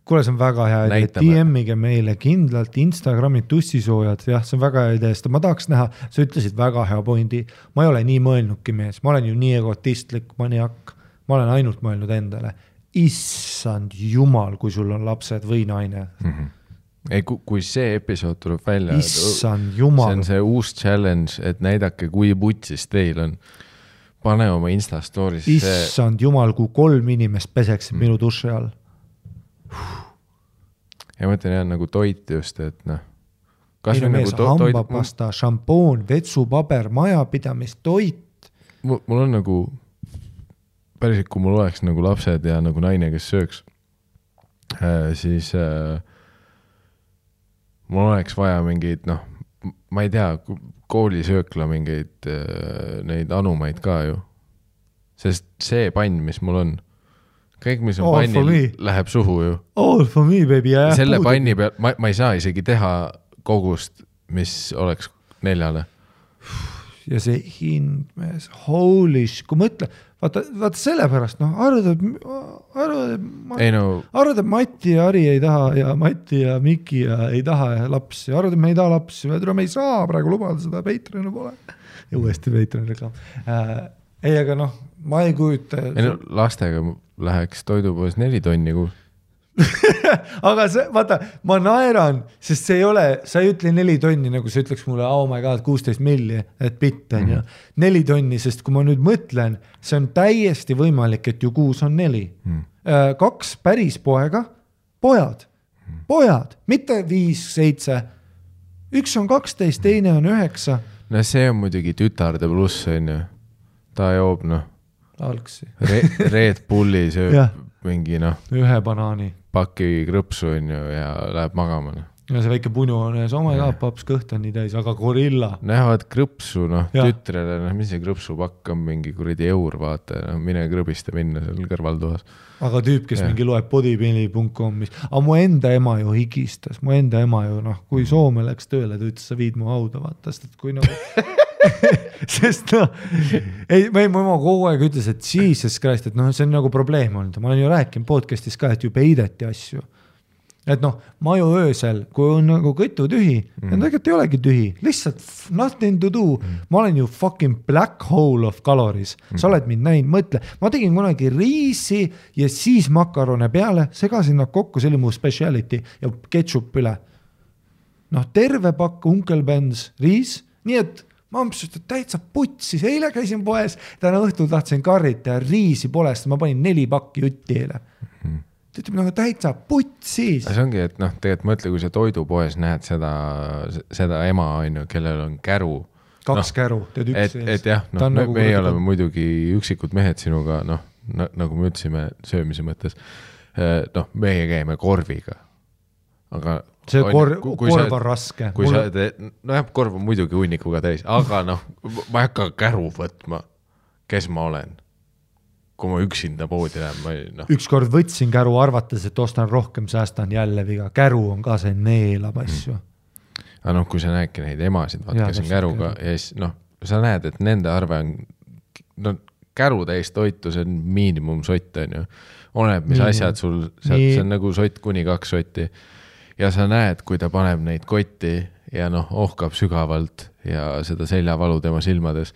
Kuule, see on väga hea idea. DM-ige meile kindlalt Instagrami tussisoojad. Jah, see on väga hea idea. Ma tahaks näha, sa ütlesid väga hea pointi. Ma ei ole nii mõelnudki mees. Ma olen ju nii egotistlik maniak. Ma olen ainult mõelnud endale. Issand jumal, kui sul on lapsed või naine. Ei, kui see episood tuleb välja, Issand jumal. See on see uus challenge, et näidake, kui putsis teil on. Pane oma Instastorisse. Issand jumal, kui 3 inimest peseksid minu duši all. Ja mõtlen jah, nagu toit just, et kas või nagu hambapasta, šampoon, vetsupaber, majapidamist, toit. Mul on nagu päriselt, kui mul oleks nagu lapsed ja nagu naine, kes sööks, siis mul oleks vaja mingeid, ma ei tea, koolisöökla mingeid neid anumaid ka ju. Sest see pann, mis mul on, kõik, mis on pannil, läheb suhu ju. All for me, baby. Selle panni peal, ma ei saa isegi teha kogust, mis oleks 4. Ja see hind, mees, holy sh, kui mõtle, vaata sellepärast, arvad, Mati ja Ari ei taha ja Mati ja Miki ei taha lapsi, arvad, me ei taha lapsi, me ei saa praegu lubada seda, Patreoni pole. Ja uuesti Patreoni reklaam. Ei, aga ma ei kujuta. Lastega läheks toidupoes 4 tonni kuus. Aga see, vaata, ma naeran, sest see ei ole, sa ei ütle 4 tonni, nagu sa ütleks mulle, oh my god, 16 milli, et bitt on ju. 4 tonni, sest kui ma nüüd mõtlen, see on täiesti võimalik, et ju kuus on 4. 2 päris pojad, mitte 5, 7. Üks on 12, teine on 9. No see on muidugi tütarde pluss, on ju. Ta joob, algsi. Red Bulli sööb mingi, ühe banaani. Paki krõpsu on ju ja läheb magama. Ja see väike punu on ees, oh my god, paps kõht on nii täis, aga gorilla. Näevad krõpsu, tütrele, mis see krõpsupakk on mingi kuradi eur, vaata, mine krõbiste minna seal kõrvaltoas. Aga tüüp, kes mingi loeb bodybuilding.com, aga mu enda ema ju higistas, kui Soome läks tööle, ta ütles, sa viid mu hauda, vaata, sest kui sest mu ema kogu aeg ütles, et Jesus Christ, et see on nagu probleem olnud. Ma olen ju rääkinud podcastis ka, et ju peideti asju. Et ma ju öösel, kui on nagu kõtu tühi, ja tegelikult ei olegi tühi, lihtsalt nothing to do. Ma olen ju fucking black hole of calories. Sa oled mind näinud, mõtle. Ma tegin kunagi riisi ja siis makarone peale, segasin nad kokku, see oli mu speciality ja ketchup üle. Terve pakk Uncle Ben's riis, nii et ma ampsust, et täitsa putsis, eile käisin poes, täna õhtul tahtsin karrita ja riisi polest, ma panin 4 pakki jutti eile. Ta ütleb, täitsa putsis. See ongi, et tegelikult mõtle, kui sa toidupoes näed seda ema, kellel on käru. 2 käru, tead üks ees. Et jah, me ei oleme muidugi üksikud mehed sinuga, nagu me ütlesime söömise mõttes, meie käime korviga. Aga see korv on raske. Korv on muidugi hunnikuga täis, aga ma ei hakka käru võtma, kes ma olen. Kui ma üksinda poodi lähen. Ükskord võtsin käru arvates, et ostan rohkem, säästan jälle viga. Käru on ka see neelab asju. Aga kui sa näedki neid emasid, kes on käruga, ja siis sa näed, et nende arve on käru täis toitu, see on miinimum sott, on ju. Oleneb, mis asjad sul, see on nagu sott kuni 2 sotti. Ja sa näed, kui ta paneb neid kotti ja ohkab sügavalt ja seda seljavalu tema silmades.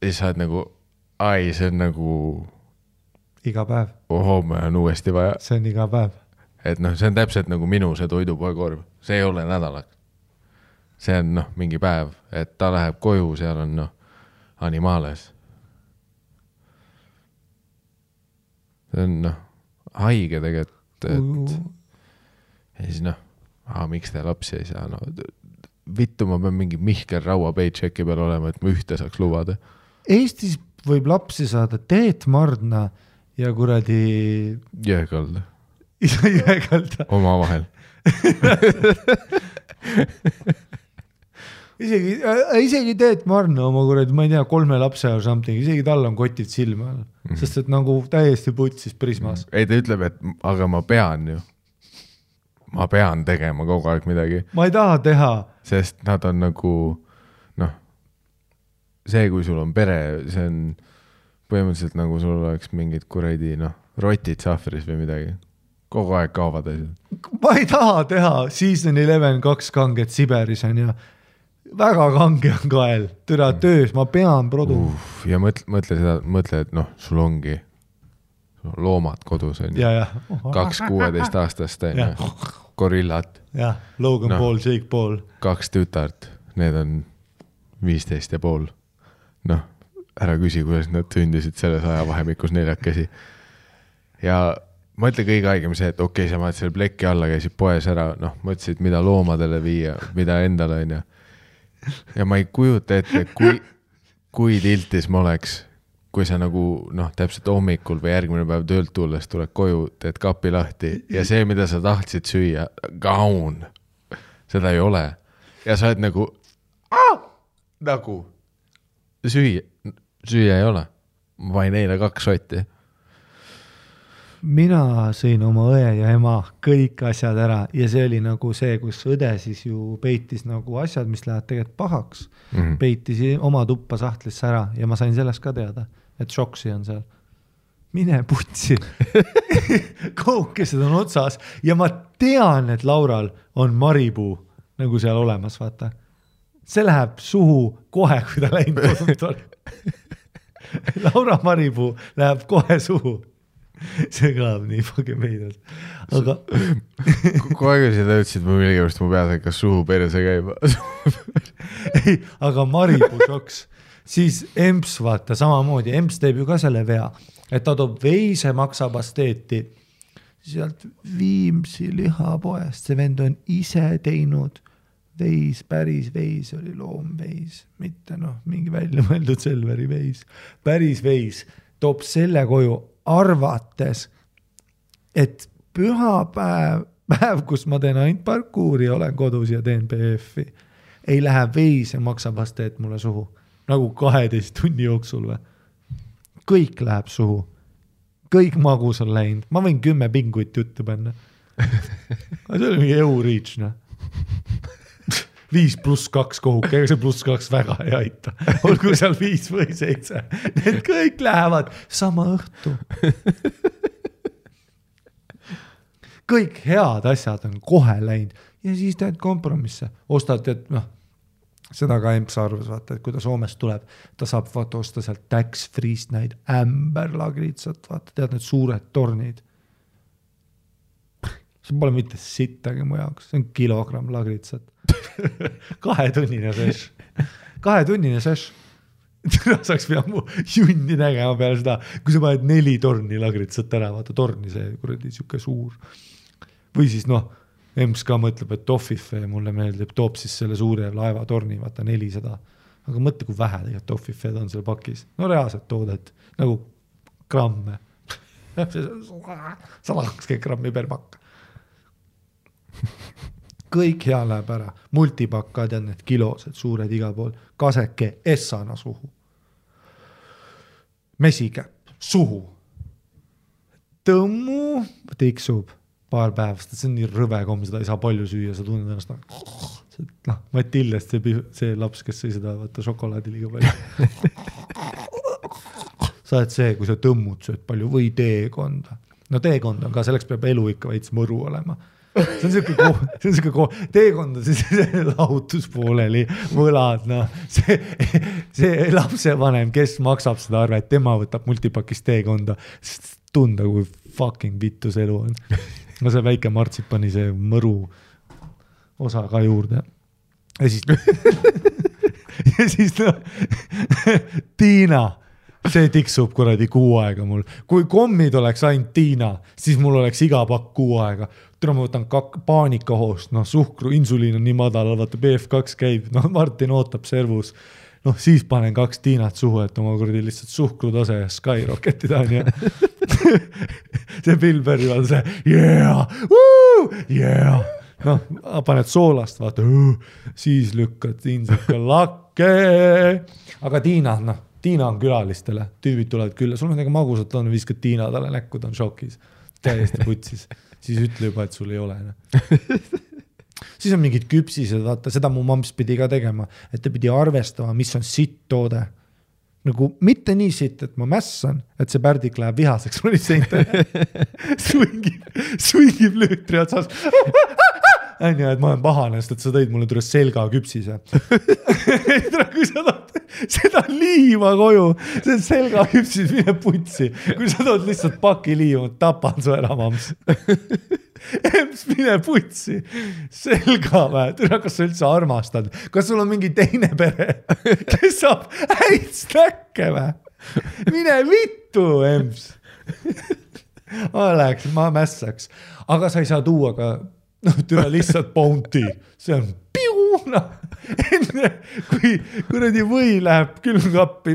Ja sa oled nagu, see on nagu iga päev. Homme on uuesti vaja. See on iga päev. Et see on täpselt nagu minu see toidupoekorv. See ei ole nädalaks. See on mingi päev, et ta läheb koju, seal on animaales. See on haige tegelikult, et ja siis miks te lapsi ei saa? vittu ma pean mingi Mihkel Raua paychecki peal olema, et ma ühte saaks lubada. Eestis võib lapsi saada Teet Mardna ja kuradi Jõekalda. Jõekalda. Oma vahel. isegi Teet Mardna oma kuradi, ma ei tea, 3 lapse or something, isegi tal on kotid silma all, sest et nagu täiesti putsis Prismas. Ei, ta ütleb, et aga ma pean tegema kogu aeg midagi. Ma ei taha teha. Sest nad on nagu, noh, see, kui sul on pere, see on põhimõtteliselt nagu sul oleks mingid kuradi, noh, rotid sahvris või midagi. Kogu aeg kaovad asjad. Ma ei taha teha Season 11 2 kanget Siberis on ja väga kange on kael. Türa töös, ma pean produ. Ja mõtle, et noh, sul ongi loomad kodus on. 2 16 aastast gorillat. Logan Paul, Jake Paul. 2 tütart, need on 15 ja pool. Noh, ära küsi, kuidas nad sündisid selles ajavahemikus 4. Ja mõtle kõige aegem see, et okei, sa maad selle plekki alla, käisid poes ära, noh, mõtlesid, mida loomadele viia, mida endale on ja ma ei kujuta ette, kui tiltis ma oleks, kui sa nagu, noh, täpselt hommikul või järgmine päev töölt tulles tuled koju, teed kapi lahti ja see, mida sa tahtsid süüa, gaun, seda ei ole. Ja sa oled nagu süüa ei ole. Ma vain eile 2 sotti. Mina sõin oma õe ja ema kõik asjad ära ja see oli nagu see, kus õde siis ju peitis nagu asjad, mis lähevad tegelikult pahaks. Peitis oma tuppa sahtlisse ära ja ma sain sellest ka teada, et šoksi on seal. Mine putsi. Koukesed on otsas ja ma tean, et Laural on maripuu nagu seal olemas, vaata. See läheb suhu kohe, kui ta läinud kodult on. Laura maripuu läheb kohe suhu. See kõlab nii fucking meidalt. Aga kogu aeg seda ütlesid, ma millegipärast mu peas hakkas suhu perse käima. Ei, aga maripuu šoks. Siis Emps, vaata, samamoodi. Emps teeb ju ka selle vea, et ta toob veise maksapasteeti sealt Viimsi lihapoest. See vend on ise teinud veis, päris veis oli loomveis, mitte noh, mingi välja mõeldud Selveri veis. Päris veis toob selle koju arvates, et pühapäev, kus ma teen ainult parkuuri ja olen kodus ja teen PF-i, ei lähe veis ja maksapasteet mulle suhu. Nagu 12 tunni jooksul või. Kõik läheb suhu. Kõik magus on läinud. Ma võin 10 pinguit juttu panna. See oli mingi EU-reach, noh. 5+2 kohuk, ega see +2 väga ei aita. Olgu seal 5 või 7. Need kõik lähevad sama õhtu. Kõik head asjad on kohe läinud ja siis teed kompromisse. Ostad, et noh, seda ka Emps arvas, vaata, et kui ta Soomest tuleb, ta saab vaata osta sealt tax-free'st näid ämberlagritsat, vaata, tead need suured tornid. See pole mitte sittagi mu jaoks, see on kilogramm lagritsat. 2-tunnine seš. 2-tunnine seš. Saaks pea mu junni nägema peale seda, kui sa paned 4 torni lagritsat ära, vaata torni see kuradi siuke suur. Või siis noh, Emps ka mõtleb, et Toffife mulle meeldib, toob siis selle suure laevatorni, vaata 400. Aga mõtle, kui vähe tegelikult Toffifed on seal pakis. No reaalselt toodet, nagu gramme. 120 grammi per pakk. Kõik hea läheb ära. Multipakad ja need kilosed, suured iga pool. Kaseke essana suhu. Mesikäpp suhu. Tõmmu tiksub paar päevast. See on nii rõve komm, seda ei saa palju süüa. Sa tunned ennast noh, Matillest see laps, kes sõi seda vaata šokolaadi liiga palju. Sa oled see, kui sa tõmmud sööd palju või teekonda. No teekond on ka, selleks peab elu ikka veits mõru olema. See on siuke teekond on see lahutuspooleli võlad, noh. See lapsevanem, kes maksab seda arve, et tema võtab multipakist teekonda, sest tunda, kui fucking vittus elu on. No see väike martsipani see mõru osa ka juurde. Ja siis no, Tiina see tiksub kuradi kuu aega mul. Kui kommid oleks ainult Tiina, siis mul oleks iga pakk kuu aega. Tule ma võtan paanikahoost, suhkru, insuliin on nii madal, vaata BF2 käib, Martin ootab servus. Siis panen 2 Tiinat suhu, et oma kuradi lihtsalt suhkrutase skyrocketida on ja see Bill Berry on see yeah. Paned soolast, vaata, siis lükkad insika lakke. Aga Tiina on külalistele, tüübid tulevad külla, sul on magusat on, viskad Tiina talle näkku, ta on šokis, täiesti putsis. Siis ütle juba, et sul ei ole. Siis on mingid küpsised, vaata, seda mu mamps pidi ka tegema, et ta pidi arvestama, mis on sitt toode. Nagu mitte nii sitt, et ma mässan, et see pärdik läheb vihaseks, ma lihtsalt swingib lüütri otsas. Et ma olen pahane, sest et sa tõid mulle tule selga küpsise. Kui sa tood seda liima koju, see selga küpsis mine putsi. Kui sa tood lihtsalt paki liima, tapan su ära, mams. Emps, mine putsi. Selga või? Kas sa üldse armastad? Kas sul on mingi teine pere, kes saab häid snäkke või? Mine vittu, Emps. Ma mässaks. Aga sa ei saa tuua ka tüle lihtsalt bounty. See on piuna. Enne kui kuradi või läheb külmkappi,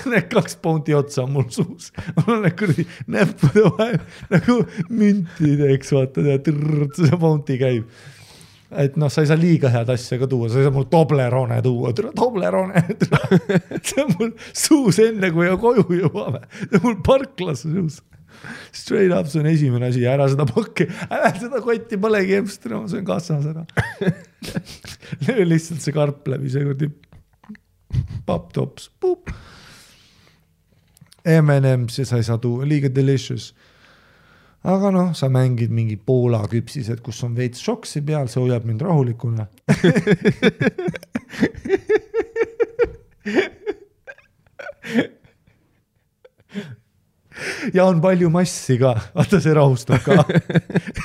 need 2 bounty otsa on mul suus. Mul on kuradi näppude vahel nagu müntideks, vaata, see bounty käib. Et sa ei saa liiga head asja ka tuua, sa ei saa mul Toblerone tuua, Toblerone. See on mul suus enne, kui koju jõuame. See on mul parklas suus. Straight up, see on esimene asi, ära seda pakki, ära seda kotti polegi emstra, see on kassas ära. Löö lihtsalt see karp läbi, see kurdi papp-tops, pup. M&M's ja sa ei saa tuua, liiga delicious. Aga sa mängid mingi Poola küpsised, kus on veits šoksi peal, see hoiab mind rahulikuna. Ja on palju massi ka, vaata see rahustab ka.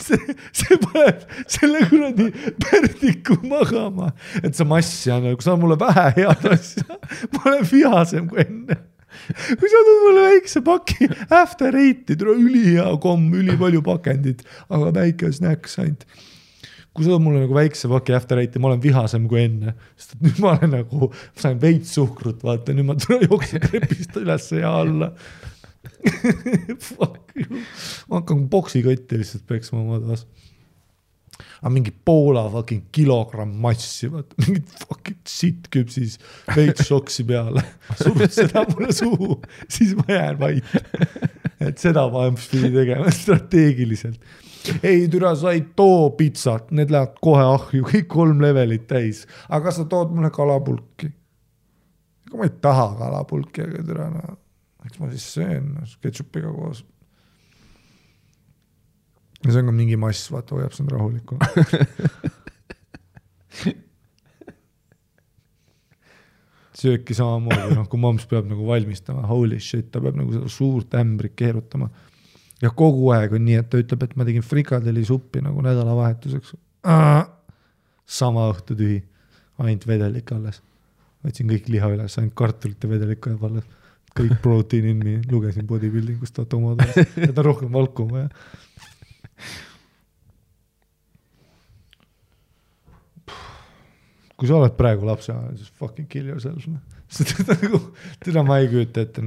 See paneb selle kuradi pärdiku magama, et see massi on, kui sa on mulle vähe head asja, ma olen vihasem kui enne. Kui sa tood mulle väikse paki after 8, tule ülihea komm, üli palju pakendid, aga väike snacks ainult. Kui sa tood mulle nagu väikse paki after 8, ma olen vihasem kui enne, sest nüüd ma olen nagu, ma sain veits suhkrut, vaata, nüüd ma tule jookse krepist üles ja alla. Fuck you. Ma hakkan boksikotti lihtsalt peksma oma taas. Aga mingi Poola fucking kilogramm massi, vaata, mingid fucking sitt küpsis, veits šoksi peale. Surud seda mulle suhu, siis ma jään vait. Et seda ma pidi tegema strateegiliselt. Ei, türa, sa ei too pitsat, need lähevad kohe ahju, kõik 3 levelit täis. Aga sa tood mulle kalapulki. Ega ma ei taha kalapulki, aga türa, eks ma siis söön ketšupiga koos. Ja see on ka mingi mass, vaata, hoiab see on rahulikuna. Sööki samamoodi, kui mams peab nagu valmistama, holy shit, ta peab nagu seda suurt ämbrit keerutama. Ja kogu aeg on nii, et ta ütleb, et ma tegin frikadeli suppi nagu nädalavahetuseks. Sama õhtu tühi, ainult vedelik alles. Võtsin kõik liha üles, ainult kartulit ja vedelikku jääb alles. Kõik protein in me, lugesin bodybuildingust, vaata oma taas, et on rohkem valku vaja. Kui sa oled praegu lapse, siis fucking kill yourself. Teda ma ei küüta ette.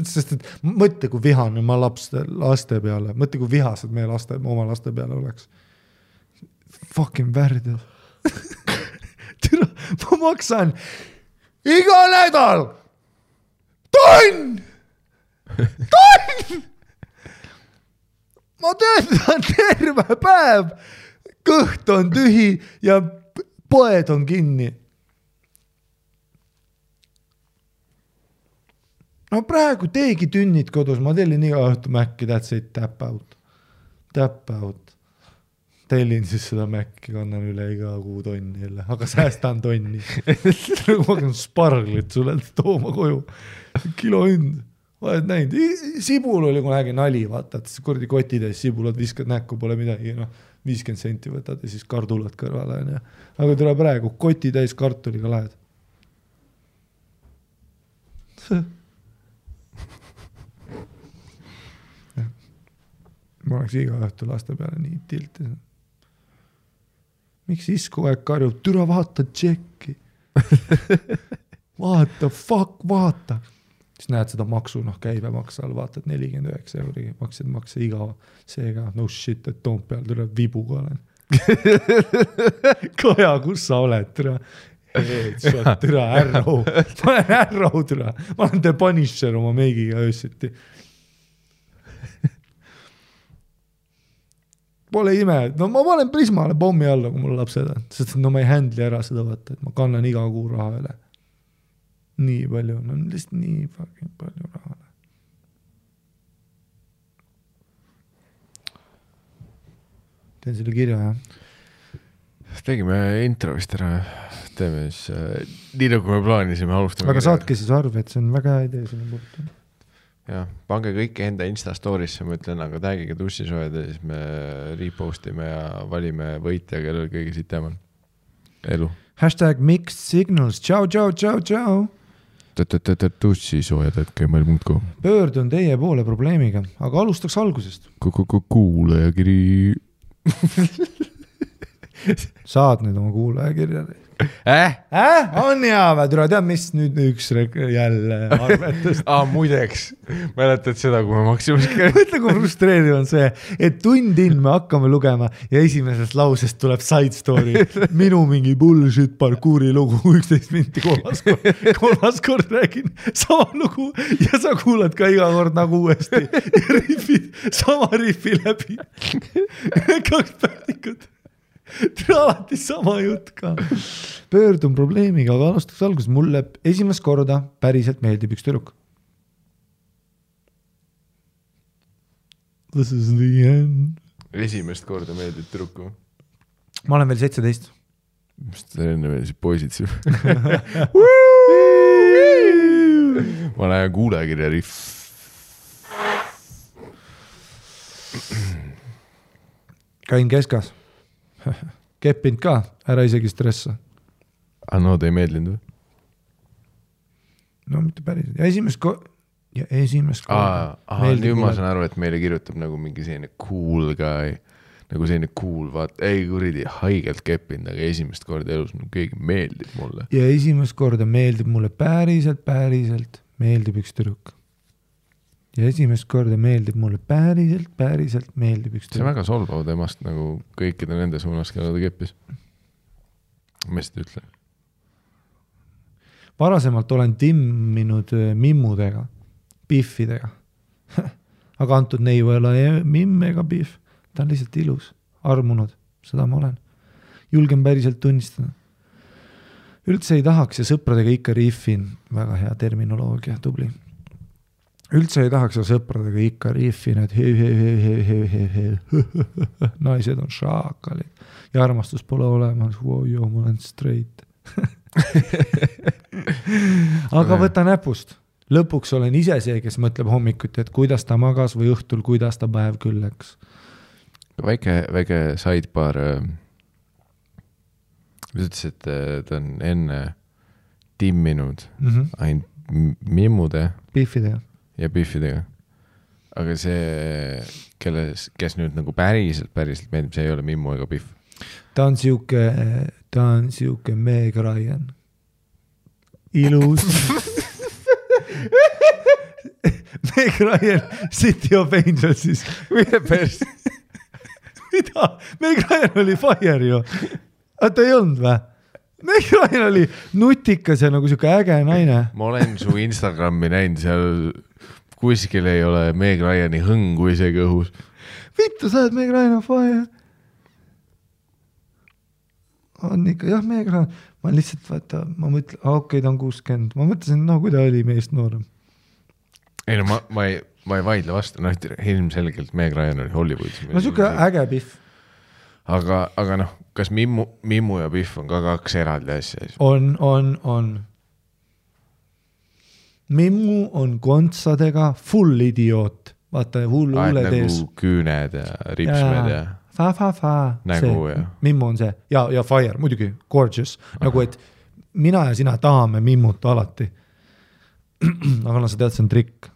Sest et mõtle, kui vihane ma laste peale, mõtle, kui vihased meie oma laste peale oleks. Fucking värdjad. Ma maksan iga nädal tonn! Ma töötan terve päev, kõht on tühi ja poed on kinni. No praegu teegi tünnid kodus, ma tellin iga õhtu Mäkki, that's it, tap out. Tellin siis seda Mäkki, kannan üle iga kuu tonni jälle, aga säästan tonni. Ma hakkan sparglit sulle tooma koju. Kilo hind, oled näinud. Sibul oli, kui nägin nali, vaata, et kurdi kotides sibulad viskad näkku, pole midagi, 50 senti võtad ja siis kardulad kõrvale. Aga tule praegu, koti täis kartuliga lähed. ma oleks iga õhtu laste peale nii tilti. Miks isku aeg karjub, türa vaata tšekki. Vaata, vaata. Siis näed seda maksu, käibemaks all, vaatad 49 euri, makse iga, seega no shit, et Toompeal tuleb vibuga olen. Koja, kus sa oled, türa? Türa, Arrow. Ma olen Arrow, türa. Ma olen The Punisher oma meigiga öösiti. Pole ime, no ma panen Prismale pommi alla, kui mul lapsed on, sest no ma ei handli ära seda vaata, et ma kannan iga kuu raha üle. Nii palju, no lihtsalt nii fucking palju raha. Teen selle kirja, jah. Tegime intro vist ära, teeme siis, nii nagu me plaanisime, alustame. Aga saatke siis arve, et see on väga hea idee sinna puutu. Jah, pange kõik enda Insta storisse, ma ütlen, aga tagige tussisoojad ja siis me repostime ja valime võitja, kellel kõige sitem on. Elu. #mixed signals, tšau. Tussisoojad, @gmail.com. Pöördun teie poole probleemiga, aga alustaks algusest. Kuulajakiri. Saad nüüd oma kuulajakirja. On hea, türa, tead, mis nüüd üks jälle arvetust. Muideks, mäletad seda, kui me Maximus käib. Mõtle, kui frustreeriv on see, et tundin me hakkame lugema ja esimesest lausest tuleb side story. Minu mingi bullshit parkuuri lugu 11 minti kolmas kord räägin sama lugu ja sa kuulad ka iga kord nagu uuesti ja riffid sama riffi läbi. 2 päevikut. Alati sama jutt ka. Pöördun probleemiga, aga alustaks alguses. Mulle esimest korda päriselt meeldib üks tüdruk. This is the end. Esimest korda meeldib tüdruku. Ma olen veel 17. Mis ta enne veel siis poisid siin? Ma lähen kuulajakirja riff. Käin keskas. Keppinud ka, ära isegi stressa. No, ta ei meeldinud või? No, mitte päris. Ja esimest korda. Nüüd ma saan aru, et meile kirjutab nagu mingi selline cool guy, nagu selline cool, ei kuridi haigelt keppinud, aga esimest korda elus keegi meeldib mulle. Ja esimest korda meeldib mulle päriselt meeldib üks tüdruk. Ja esimest korda meeldib mulle päriselt meeldib üks tüdruk. See on väga solvav temast nagu kõikide nende suunas, kelle ta keppis. Ma seda ütlen. Varasemalt olen timminud mimmudega, biffidega. Aga antud neiu ei ole mimm ega biff. Ta on lihtsalt ilus, armunud. Seda ma olen. Julgen päriselt tunnistada. Üldse ei tahaks ja sõpradega ikka riffin. Väga hea terminoloogia, tubli. Üldse ei tahaks ja sõpradega ikka riffin, et naised on šaakalid ja armastus pole olemas. Ma olen straight. Aga võta näpust. Lõpuks olen ise see, kes mõtleb hommikuti, et kuidas ta magas või õhtul, kuidas ta päev küll läks. Väike sidebar. Ütles, et ta on enne timminud ainult mimmude biffidega ja biffidega. Aga see, kes nüüd nagu päriselt meeldib, see ei ole mimmu ega biff. Ta on siuke Meg Ryan. Ilus. Meg Ryan, City of Angelsis. Mida? Meg Ryan oli fire ju. Ta ei olnud või? Meg Ryan oli nutikas ja nagu siuke äge naine. Ma olen su Instagrami näinud, seal kuskil ei ole Meg Ryani hõngu isegi õhus. Vittu, sa oled Meg Ryan on fire. On ikka, jah, Meg Ryan. Ma lihtsalt vaata, ma mõtlen, okei, ta on 60. Ma mõtlesin, kui ta oli meest noorem. Ei no, ma ei vaidle vastu. Ilmselgelt Meg Ryan oli Hollywoodis. No siuke äge biff. Aga noh, kas mimmu ja biff on ka 2 eraldi asja? On. Mimmu on kontsadega full idioot. Vaata, hulle tees. Nagu küüned ja ripsmed ja... Fa. Nägu ja... Mimmu on see. Ja fire, muidugi, gorgeous. Nagu, et mina ja sina tahame mimmut alati. Aga sa tead, see on trikk.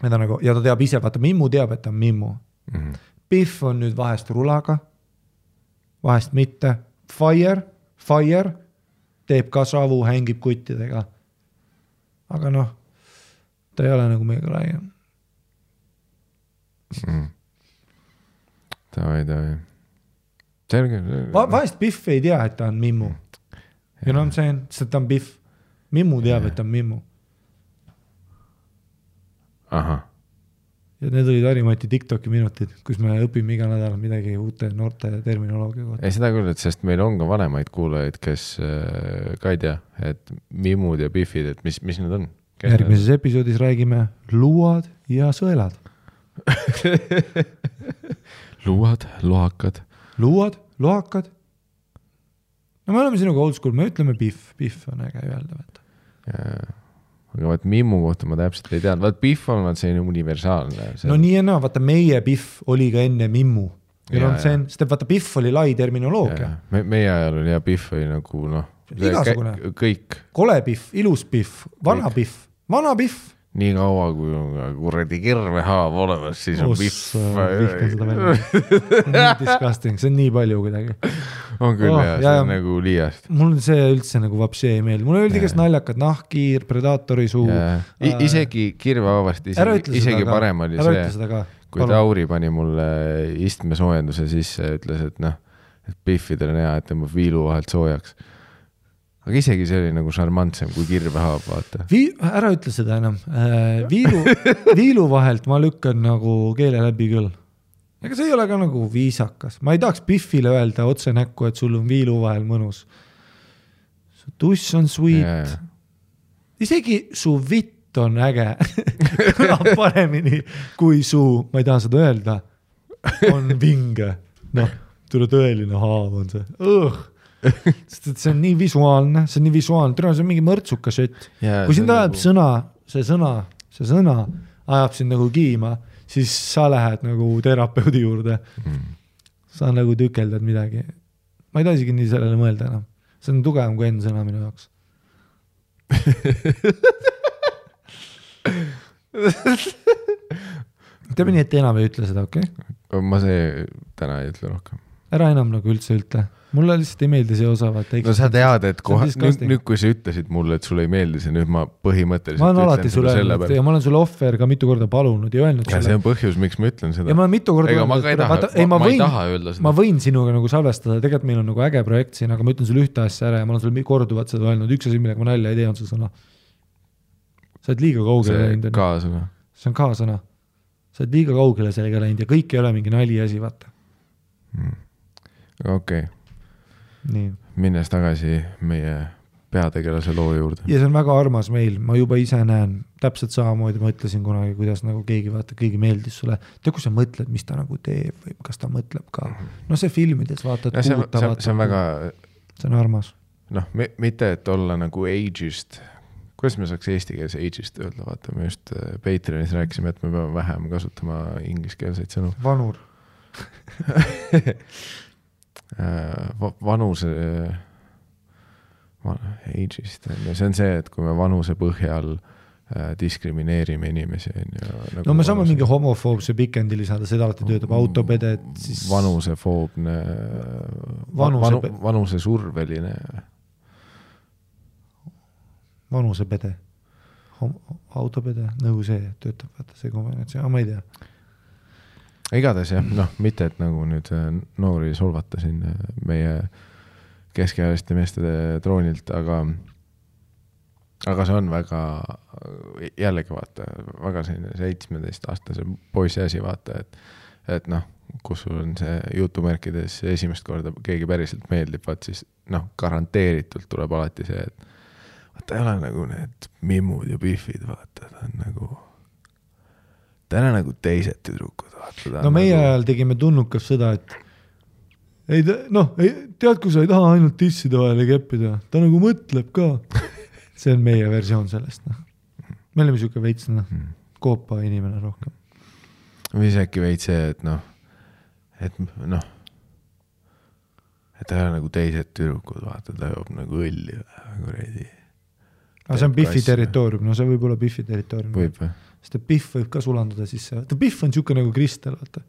Ja ta teab ise, vaata, mimmu teab, et ta on mimmu. Biff on nüüd vahest rulaga, vahest mitte. Fire teeb ka savu, hängib kuttidega. Aga noh, ta ei ole nagu meiega laiem. Tavai. Selge. Vahest Biff ei tea, et ta on Mimmu. Ja no on see, sest ta on Biff. Mimmu teab, et ta on Mimmu. Aha. Ja need olid Harimati TikToki minutid, kus me õpime iga nädal midagi uute noorte terminoloogia kohta. Ei seda küll, et sest meil on ka vanemaid kuulajaid, kes ka ei tea, et Mimmud ja Biffid, et mis need on? Järgmises episoodis räägime luuad ja sõelad. Luuad, lohakad. Luuad, lohakad. No me oleme sinuga old school, me ütleme Biff. Biff on äge öelda. Aga vaat Mimmu kohta ma täpselt ei teadnud. Vaat Biff on selline universaalne. No nii ja vaata meie Biff oli ka enne Mimmu. Sest vaata Biff oli lai terminoloogia. Meie ajal oli ja Biff oli nagu igasugune. Kõik. Kole Biff, ilus Biff, vana Biff. Nii kaua, kui on kuradi kirvehaav olemas, siis on Biff. Nii disgusting, see on nii palju kuidagi. On küll see on nagu liiast. Mul see üldse nagu vapsi ei meeldi. Mul oldi kes naljakad, nahkiir, predaatori suu. Isegi kirvehaavast, isegi parem oli see, kui Tauri pani mulle istmesoojenduse sisse ja ütles, et Biffidel on hea, et tõmbab viilu vahelt soojaks. Aga isegi see oli nagu šarmantsem kui kirvehaab, vaata. Ära ütle seda enam. Viilu vahelt ma lükkan nagu keele läbi küll. Ega see ei ole ka nagu viisakas. Ma ei tahaks Biffile öelda otse näkku, et sul on viilu vahel mõnus. Su tuss on sweet. Isegi su vitt on äge. Kõlab paremini kui su, ma ei taha seda öelda, on vinge. Noh, tule tõeline haav on see. See on nii visuaalne, see on mingi mõrtsuka šett. Kui sind ajab see sõna ajab sind nagu kiima, siis sa lähed nagu terapeudi juurde. Sa nagu tükeldad midagi. Ma ei taha isegi nii sellele mõelda enam. See on tugevam kui enne sõna minu jaoks. Teeme nii, et enam ei ütle seda, okei? Ma see täna ei ütle rohkem. Ära enam nagu üldse ütle. Mulle lihtsalt ei meeldi see osa. No sa tead, et nüüd kui sa ütlesid mulle, et sulle ei meeldi see, nüüd ma põhimõtteliselt ma olen alati sulle öelnud ja ma olen sulle offer ka mitu korda palunud ja öelnud ja see on põhjus, miks ma ütlen seda. Ja ma olen mitu korda ma ei taha öelda seda. Ma võin sinuga nagu salvestada, tegelikult meil on nagu äge projekt siin, aga ma ütlen sulle ühte asja ära ja ma olen sulle korduvat seda öelnud. Üks asi, millega ma nalja ei tee, on see sõna. Sa oled liiga kaugele läinud. See on kaasõna. Sa oled liiga kaugele sellega läinud ja kõik ei ole mingi nali asi, vaata. Okei. Minnes tagasi meie peategelase loo juurde. Ja see on väga armas meil, ma juba ise näen täpselt samamoodi, ma ütlesin kunagi, kuidas nagu keegi vaata, keegi meeldis sulle. Tea, kui sa mõtled, mis ta nagu teeb või kas ta mõtleb ka. No see filmides vaatad, see on väga... See on armas. Noh, mitte et olla nagu ageist. Kuidas me saaks eesti keeles ageist öelda? Vaata, me just Patreonis rääkisime, et me peame vähem kasutama ingliskeelseid sõnu. Vanur. Vanuse ageist, see on see, et kui me vanuse põhjal diskrimineerime inimesi nagu no me saame mingi homofoobse pikendi lisada, seda alati töötab autopede siis... vanusefoobne vanusesurveline vanusepede autopede, nõu see töötab, vaata see kombinatsioon, ma ei tea. Igatahes jah, mitte et nagu nüüd noori solvata siin meie keskealiste meestede troonilt, aga see on väga, jällegi vaata, väga selline 17-aastase poisi asi vaata, et kus sul on see jutumärkides esimest korda keegi päriselt meeldib, vaat siis garanteeritult tuleb alati see, et vaata ei ole nagu need Mimmud ja Biffid, vaata, ta on nagu täna nagu teised tüdrukud. No meie ajal tegime tunnukas seda, et tead, kui sa ei taha ainult tisside vahele keppida, ta nagu mõtleb ka. See on meie versioon sellest. Me oleme siuke veits koopa inimene rohkem. Või see äkki veits see, et ta ei ole nagu teised tüdrukud, vaata, ta joob nagu õlli kuredi. Aga see on Biffi territoorium, see võib olla Biffi territoorium. Võib või? Sest Biff võib ka sulanduda sisse. Biff on siuke nagu kristal, vaata.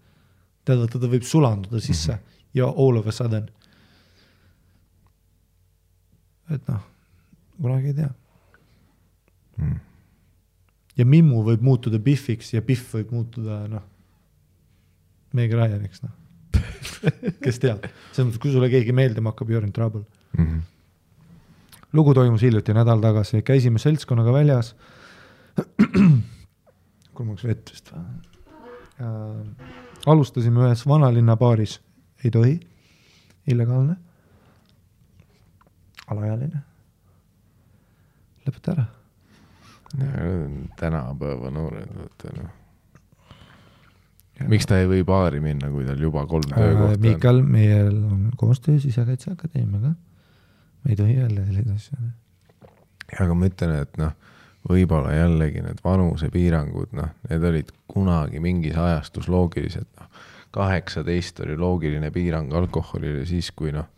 Tähendab, ta võib sulanduda sisse ja all of a sudden. Et noh, kunagi ei tea. Ja Mimmu võib muutuda Biffiks ja Biff võib muutuda, noh, Meg Ryaniks, noh. Kes teab? Kui sulle keegi meeldima hakkab, you're in trouble. Lugu toimus hiljuti nädal tagasi. Käisime seltskonnaga väljas. Kulmaks vett vist. Alustasime ühes vanalinna baaris. Ei tohi. Illegaalne. Alajaline. Lõpeta ära. Tänapäeva noored. Miks ta ei või baari minna, kui tal juba 3 töökohta on? Mikal, meil on koostöö Sisekaitseakadeemiaga. Me ei tohi jälle sellised asju. Aga ma ütlen, et noh, võib-olla jällegi need vanusepiirangud, noh, need olid kunagi mingis ajastus loogilised. Noh. 18 oli loogiline piirang alkoholile siis, kui noh,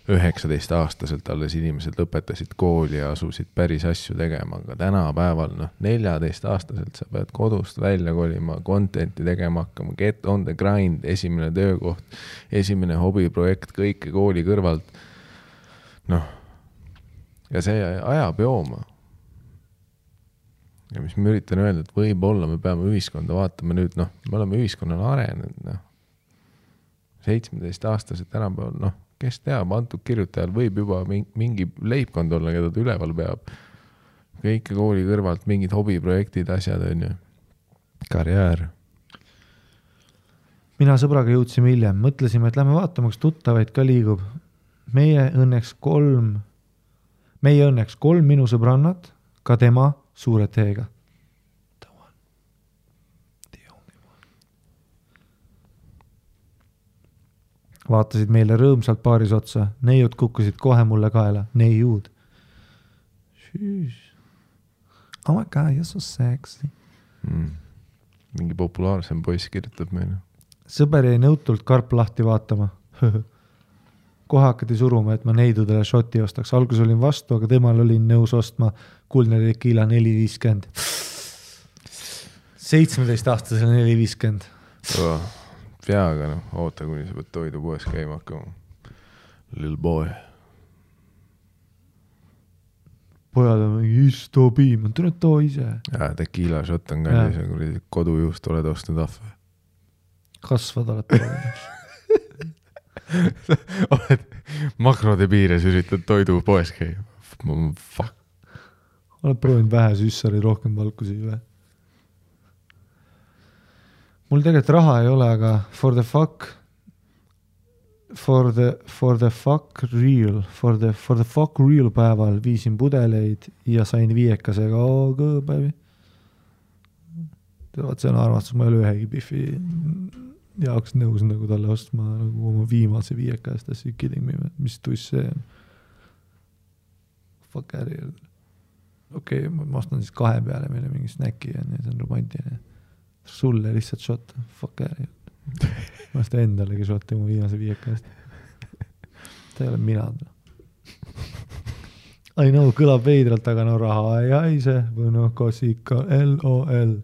19-aastaselt alles inimesed lõpetasid kooli ja asusid päris asju tegema, aga tänapäeval 14-aastaselt sa pead kodust välja kolima, contenti tegema hakkama, get on the grind, esimene töökoht, esimene hobiprojekt, kõike kooli kõrvalt. Noh, ja see ajab jooma. Ja mis ma üritan öelda, et võib-olla me peame ühiskonda vaatama nüüd, noh, me oleme ühiskonnale arenenud, noh, 17-aastased tänapäeval, noh, kes teab, antud kirjutajal võib juba mingi leibkond olla, keda ta üleval peab. Kõike kooli kõrvalt, mingid hobiprojektid, asjad on ju. Karjäär. Mina sõbraga jõudsime hiljem. Mõtlesime, et lähme vaatama, kas tuttavaid ka liigub. Meie õnneks 3 minu sõbrannat, ka tema suure teega. Vaatasid meile rõõmsalt paaris otsa. Neiud kukkusid kohe mulle kaela. Neiud. Oh my god, you're so sexy. Mingi populaarsem poiss kirjutab meile. Sõber jäi nõutult karp lahti vaatama. Kohe hakati suruma, et ma neidudele šoti ostaks. Algus olin vastu, aga temal olin nõus ostma kuldne tequila 4.50. 17-aastasele 4.50. Peaga, noh, oota, kuni sa pead toidu poes käima hakkama. Little boy. Pojad on mingi istopiim, on tulnud too ise. Tequila shot on kallis ja kui kodujuust oled ostnud ahve. Kasvad oled proovinud. Oled makrode piires üritad toidu poes käima. Fuck. Oled proovinud vähe süssari rohkem valkusi või? Mul tegelikult raha ei ole, aga for the fuck real päeval viisin pudeleid ja sain 5-kasega päevi. See on arvastus, ma ei ole ühegi Biffi jaoks nõus nagu talle ostma nagu oma viimase 5-kast, that's you kidding me, mis tuss see on. Fuck äri. Okei, ma ostan siis 2 peale meile mingi snäki ja see on romantiline. Sulle lihtsalt shot, fuck äri. Ma seda endalegi shot mu viimase 5-kast. Ta ei ole mina. I know, kõlab veidralt, aga no raha ei haise või noh, kasika LOL.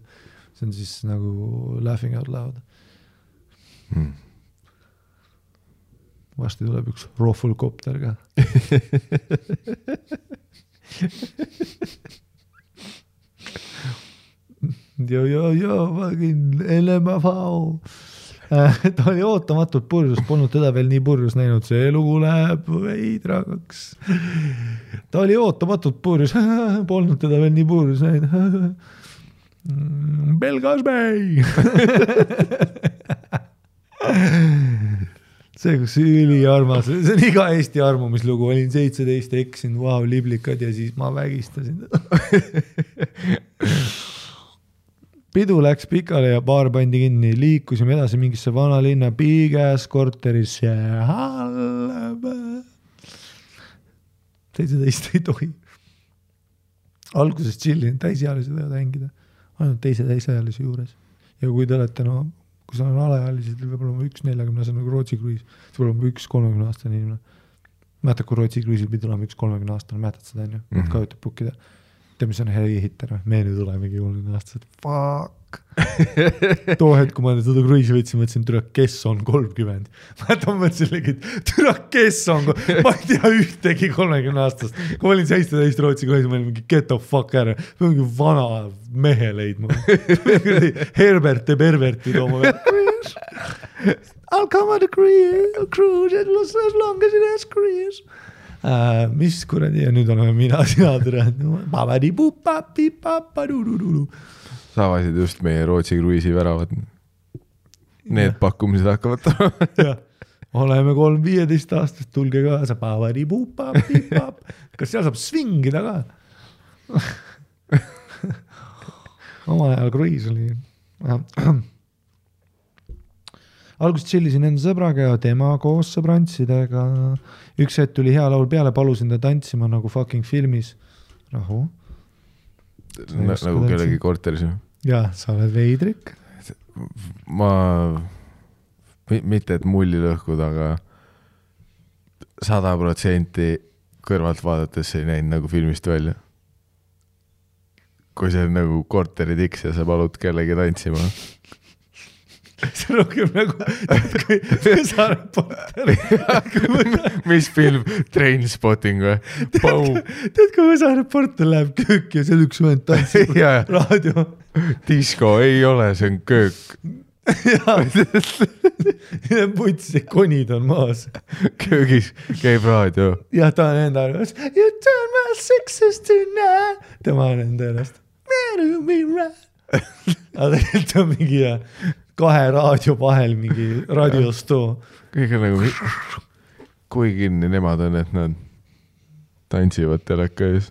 See on siis nagu laughing out loud. Vasti tuleb üks rohvulkopter ka. Fucking LMFV. Ta oli ootamatult purjus, polnud teda veel nii purjus näinud, see lugu läheb veidragaks. Ta oli ootamatult purjus, polnud teda veel nii purjus näinud. Belgasbei! See, kus üli armas, see on iga Eesti armumislugu, olin 17, eksin, wow, liblikad ja siis ma vägistasin teda. Pidu läks pikale ja baar pandi kinni, liikusime edasi mingisse vanalinna piigas korterisse. 17 ei tohi. Alguses chillin, täisealised võivad hängida. Ainult teise täisealise juures. Ja kui te olete, no, kui sa on alaealised, võib olla üks 40-aastane nagu Rootsi kruiis, siis võib olla üks 30-aastane inimene. Mäletad, kui Rootsi kruiisil pidi olema üks 30-aastane, mäletad seda, on ju? Kajutab pukkida. Tead, mis on hei hitter, me nüüd olemegi 30 aastased. Fuck! too hetk, kui ma seda kruiisi võtsin, mõtlesin, türa, kes on 30. Ma mõtlesin, et türa, kes on, ma ei tea ühtegi 30 aastast. Kui ma olin 17 Rootsi kruiisi, ma olin mingi get the fuck ära. Ma mingi vana mehe leidma. Herbert ja Perverti tooma veel. I'll come on a cruise as long as it has cruise. Mis kuradi ja nüüd oleme mina sina tere. Sa avasid just meie Rootsi kruiisi väravad. Need pakkumised hakkavad ja, oleme 3-15 aastast, tulge kaasa. Kas seal saab svingida ka? Omal ajal kruiis oli. Alguses chillisin enda sõbraga ja tema koos sõbrantsidega. Üks hetk tuli hea laul peale, palusin ta tantsima nagu fucking filmis. Rahu. Nagu kellegi korteris. Jah, sa oled veidrik. Ma, mitte et mulli lõhkud, aga 100% kõrvalt vaadates ei näinud nagu filmist välja. Kui see on nagu korteri tiks ja sa palud kellegi tantsima. See rohkem nagu Võsareporter. Mis film? Trainspotting või? Tead, kui Võsareporter läheb köök ja seal üks vend tantsib raadio. Disko ei ole, see on köök. Ja putsi konid on maas. Köögis käib raadio. Ja ta on enda arvas. You turn my sixes tonight. Tema on enda ennast. Aga tegelikult on mingi 2 raadio vahel mingi raadiostoo. Kõik on nagu, kui kinni nemad on, et nad tantsivad teleka ees.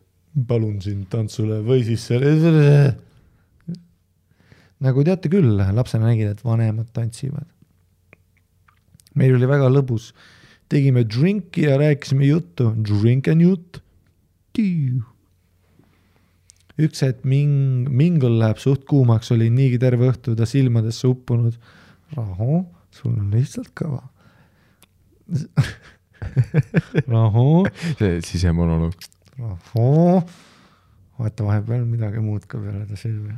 Palun sind tantsule või siis selle. Nagu teate küll, lapsena nägid, et vanemad tantsivad. Meil oli väga lõbus. Tegime drinki ja rääkisime juttu. Drink and jutt. Üks hetk mingul läheb suht kuumaks, oli niigi terve õhtu ta silmadesse uppunud. Rahu, sul on lihtsalt kõva. Rahu. See sisemonoloog. Rahu. Vaata vahepeal midagi muud ka peale ta silmi.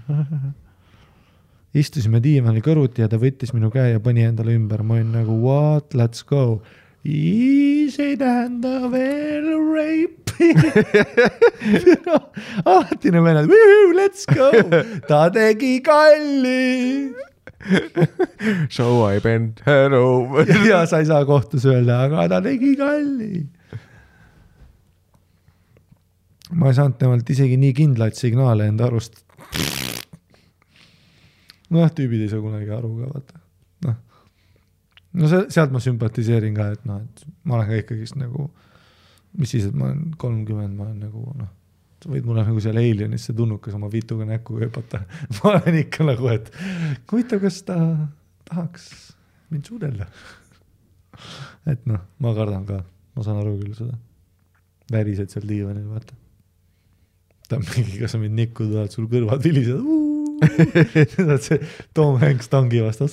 Istusime diivani kõruti ja ta võttis minu käe ja pani endale ümber. Ma olin nagu, what, let's go. Easy tähenda veel rape. Alatine vennad, let's go. Ta tegi kalli. So I bent her over. Ja sa ei saa kohtus öelda, aga ta tegi kalli. Ma ei saanud temalt isegi nii kindlaid signaale enda arust. Tüübid ei saa kunagi aru ka, vaata. No sealt ma sümpatiseerin ka, et et ma olen ka ikkagist nagu, mis siis, et ma olen 30, ma olen nagu, sa võid mulle nagu seal Alienisse tunnukas oma vituga näkku köpata. Ma olen ikka nagu, et huvitav, kas ta tahaks mind suudella. Et ma kardan ka, ma saan aru küll seda. Värised seal diivanil, vaata. Ta on mingi, kas sa mind nikku tuled, sul kõrvad vilised, see Tom Hanks tangi vastas,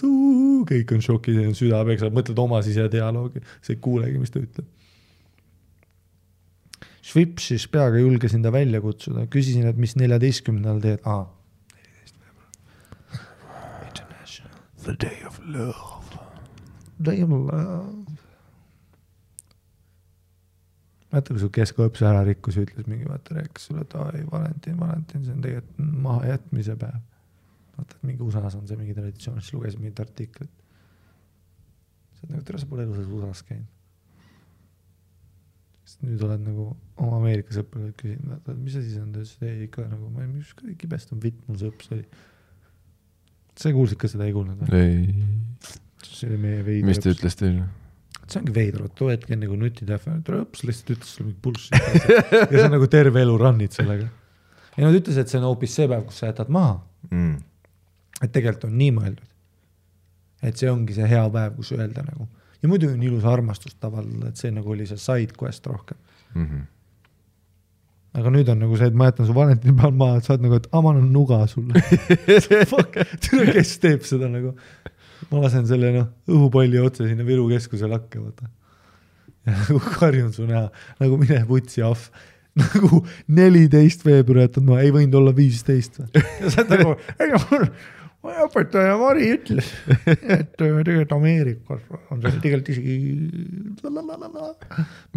kõik on šokis, süda peksab, mõtled oma sise dialoogi, see ei kuulegi, mis ta ütleb. Švipsis peaga julgesin ta välja kutsuda, küsisin, et mis 14. teed. 14. veebruar. International. The day of love. Day of love. Vaata, kui su keskõõps ära rikkus ja ütles mingi, vaata, rääkis sulle, et Valentin, see on tegelikult maha jätmise päev. Vaata, et mingi USA-s on see mingi traditsioon, siis lugesin mingit artiklit. See on nagu, tere, sa pole elusas USA-s käinud. Sest nüüd oled nagu oma Ameerika sõpradelt küsinud, vaata, mis see siis on, ta ütles, ei ikka nagu, ma ei mis kibest on vitt, mul sõps oli. Sa kuulsid ka seda, ei kuulnud? Ei. See oli meie veidi. Mis ta ütles teile? See ongi veidru, too hetk enne kui nutitähve, trõps, lihtsalt ütles sulle mingi bullshit. Ja see on nagu terve elu rannid sellega. Ja nad ütles, et see on hoopis see päev, kus sa jätad maha. Et tegelikult on nii mõeldud. Et see ongi see hea päev, kus öelda nagu. Ja muidu on ilus armastus tavale, et see nagu oli see side quest rohkem. Aga nüüd on nagu see, et ma jätan su Valentini peal maha, et sa oled nagu, et ma annan nuga sulle. Fuck, tule, kes teeb seda nagu. Ma lasen selle õhupalli otse sinna Viru keskuse lakke, vaata. Ja nagu karjun su näha, nagu mine putsi ahv. Nagu 14 veebruar jätad ma, ei võinud olla 15. Ja sa oled nagu, õpetaja Mari ütles, et tegelikult Ameerikas on see tegelikult isegi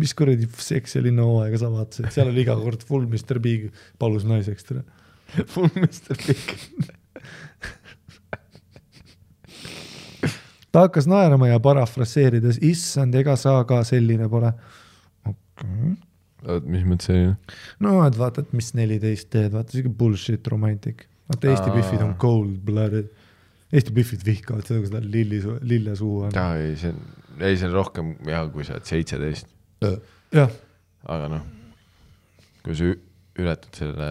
mis kuradi seks ja linnahooaega sa vaatasid, seal oli iga kord full Mr. Big palus naiseks tere. Full Mr. Big. Ta hakkas naerama ja parafraseerides, issand, ega sa ka selline pole. Okay. Mis mõttes selline? No, et vaata, et mis 14 teed, vaata, see bullshit romantic. Vaata, Eesti Biffid on cold-blooded. Eesti Biffid vihkavad seda, kui seda lille suu on. Ei, see on rohkem hea, kui sa oled 17. Jah. Aga noh, kui sa ületad selle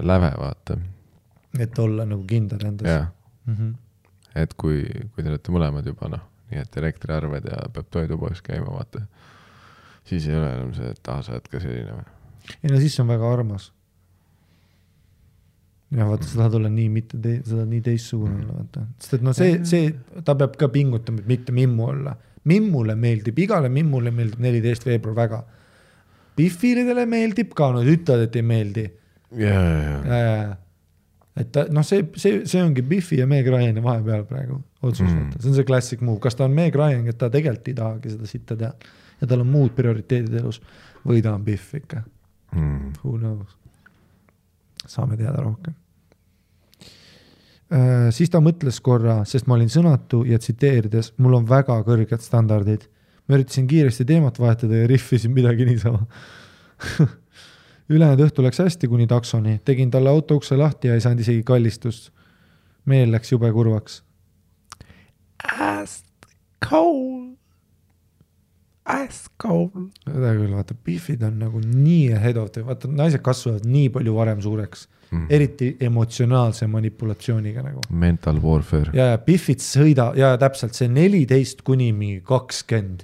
läve, vaata. Et olla nagu kindel endas. Jah. Et kui te olete mõlemad juba, noh, nii et elektriarved ja peab toidupoes käima, vaata. Siis ei ole enam see, et sa oled ka selline. Ei, no siis on väga armas. Ja vaata, sa tahad olla nii, seda nii teissugune olla, vaata. Sest et no see, ta peab ka pingutama, et mitte mimmu olla. Mimmule meeldib, igale mimmule meeldib 14 veebruar väga. Biffilidele meeldib ka, no ütled, et ei meeldi. Ja. Et ta, no see ongi Biffi ja Meg Ryani vahepeal praegu otsus. See on see classic move. Kas ta on Meg Ryan, et ta tegelikult ei tahagi seda sitta teha ja tal on muud prioriteedid elus või ta on Biff ikka. Who knows? Saame teada rohkem. Siis ta mõtles korra, sest ma olin sõnatu ja tsiteerides, mul on väga kõrged standardid. Ma üritasin kiiresti teemat vahetada ja riffisin midagi niisama. Ülejäänud õhtu läks hästi kuni taksoni. Tegin talle auto ukse lahti ja ei saanud isegi kallistust. Meel läks jube kurvaks. Ice cold. Seda küll, vaata, Biffid on nagu nii ahead of the, vaata, naised kasvavad nii palju varem suureks. Eriti emotsionaalse manipulatsiooniga nagu. Mental warfare. Ja Biffid sõida, ja täpselt see 14 kuni 20.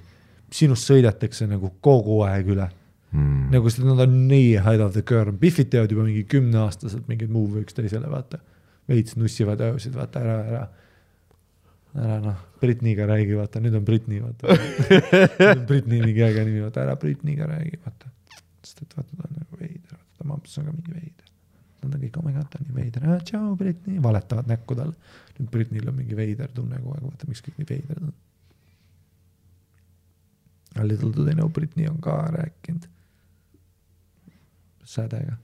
Sinust sõidetakse nagu kogu aeg üle. Nagu seda nad on nii ahead of the curve. Biffid teevad juba mingi 10-aastaselt mingid move üks teisele, vaata. Veits nussivad öösid, vaata, ära noh, Britniga räägi, vaata, nüüd on Britni, vaata. Nüüd on Britni mingi äge nimi, vaata, ära Britniga räägi, vaata. Sest et vaata, ta on nagu veider, vaata, ta mamps on ka mingi veider. Nad on kõik, oh my god, ta on nii veider, tšau Britni, valetavad näkku talle. Nüüd Britnil on mingi veider tunne kogu aeg, vaata, miks kõik nii veider on. A little do they know, Britni on ka rääkinud. Sädega.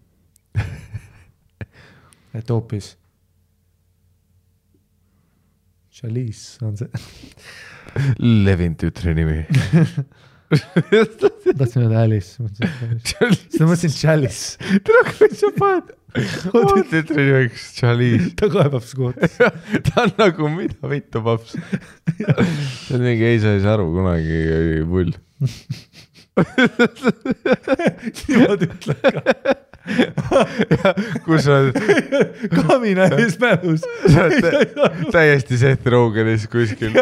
Et hoopis Chalice on see. Levin tütre nimi. Tahtsin öelda Alice. Seda mõtlesin Chalice. Tere, kui sa paned. Oma tütre nimiks Chalice. Ta kaebab skoot. Ta on nagu mida vittu paps. See on mingi ei saa aru kunagi pull. Niimoodi ütled ka. Kus on Kamina ees mälus. täiesti Seth Rogenis kuskil.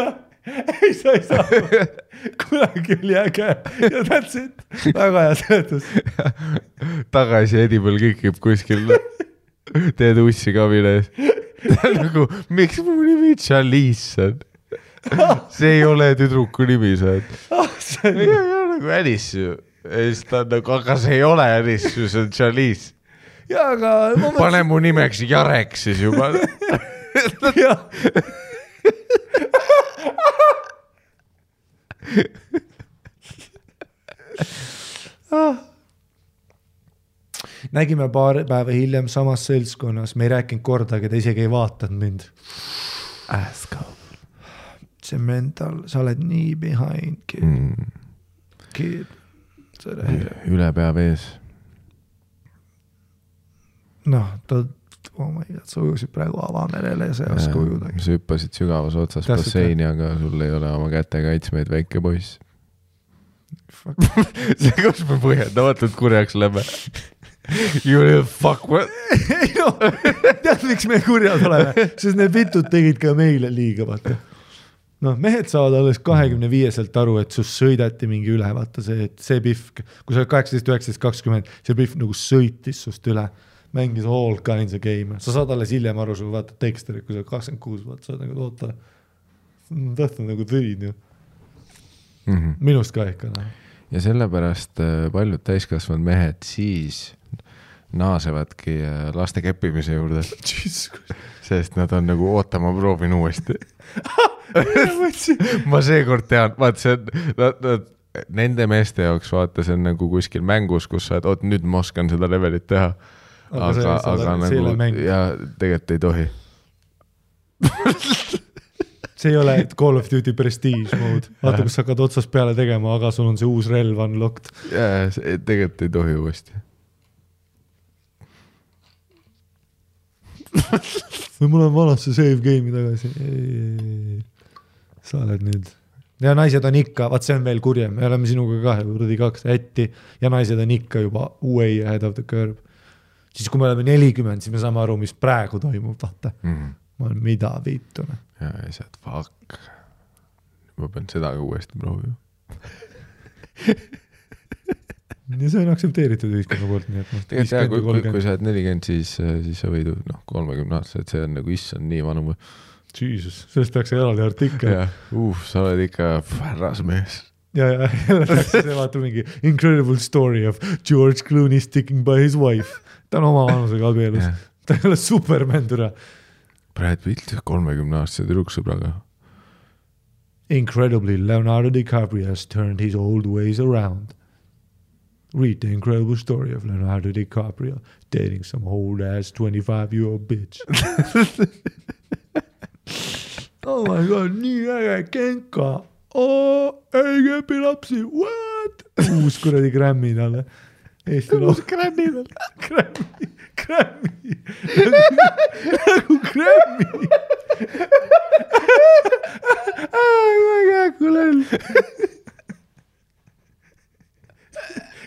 Ei saa. Kunagi oli äge. Ja that's it. Väga hea seletus. Tagasi Edible kikib kuskil. Teed ussi Kamina ees. Ta on nagu, miks mu nimi Chalice on? See ei ole tüdruku nimi, saad. See on nagu Alice ju. Aga see ei ole Alice, see on Chalice. Ja, aga... Pane mu nimeks Jarek siis juba. Jah. Nägime paar päeva hiljem samas seltskonnas. Me ei rääkinud kordagi, ta isegi ei vaatanud mind. See mental, sa oled nii behind, kid. Üle pea vees. Noh, ta sa ujusid praegu avamerele ja see ei oska ujudagi. Sa hüppasid sügavas otsas basseini, aga sul ei ole oma käte kaitsmeid, väike poiss. See kus me põhjendamatult kurjaks läbi. You little fuck what? Ei no, tead miks me kurjad oleme, sest need vitud tegid ka meile liiga, vaata. Noh, mehed saavad alles 25-selt aru, et sus sõidati mingi üle, vaata see Biff, kui sa oled 18, 19, 20, see Biff nagu sõitis sust üle, mängis all kinds of game. Sa saad alles hiljem aru, sul vaata teksterid, kui sa 26, vaata, sa oled nagu oota, tahtnud nagu tõid ju. Minust ka ikka. Ja sellepärast paljud täiskasvanud mehed siis naasevadki laste keppimise juurde. Sest nad on nagu ootama proovin uuesti. Ma seekord tean, vaat see on, nende meeste jaoks vaata, see on nagu kuskil mängus, kus sa, et nüüd ma oskan seda levelit teha. Aga nagu, ja tegelikult ei tohi. See ei ole Call of Duty Prestige mode. Vaata, kus sa hakkad otsast peale tegema, aga sul on see uus relv unlocked. Jaa, tegelikult ei tohi uuesti. Või mul on vanasse save game'i tagasi. Sa oled nüüd. Ja naised on ikka, vaat see on veel kurjem. Me oleme sinuga kaks ätti ja naised on ikka juba way ahead of the curve. Siis kui me oleme 40, siis me saame aru, mis praegu toimub, vaata. Ma olen mida viitune. Ja saad, fuck. Ma pean seda ka uuesti proovima. Ja see on aktsepteeritud ühiskonna poolt, nii et tegelikult kui sa oled 40, siis sa võidu 30 aastased, see on nagu issand nii vanu. Jesus, sellest peaks eraldi artikkel. Sa oled ikka härrasmees. Ja jälle peaks see vaata mingi incredible story of George Clooney sticking by his wife. Ta on oma vanusega abielus. Ta ei ole Superman türa. Brad Pitt 30-aastase tüdruksõbraga. Incredibly, Leonardo DiCaprio has turned his old ways around. Read the incredible story of Leonardo DiCaprio dating some old-ass 25-year-old bitch. Oh my god, nii äge Genka. Ei kepi lapsi, what? Uus kuradi Grammy talle. Uus Grammy talle. Grammy. Nagu Grammy. Väga kulel.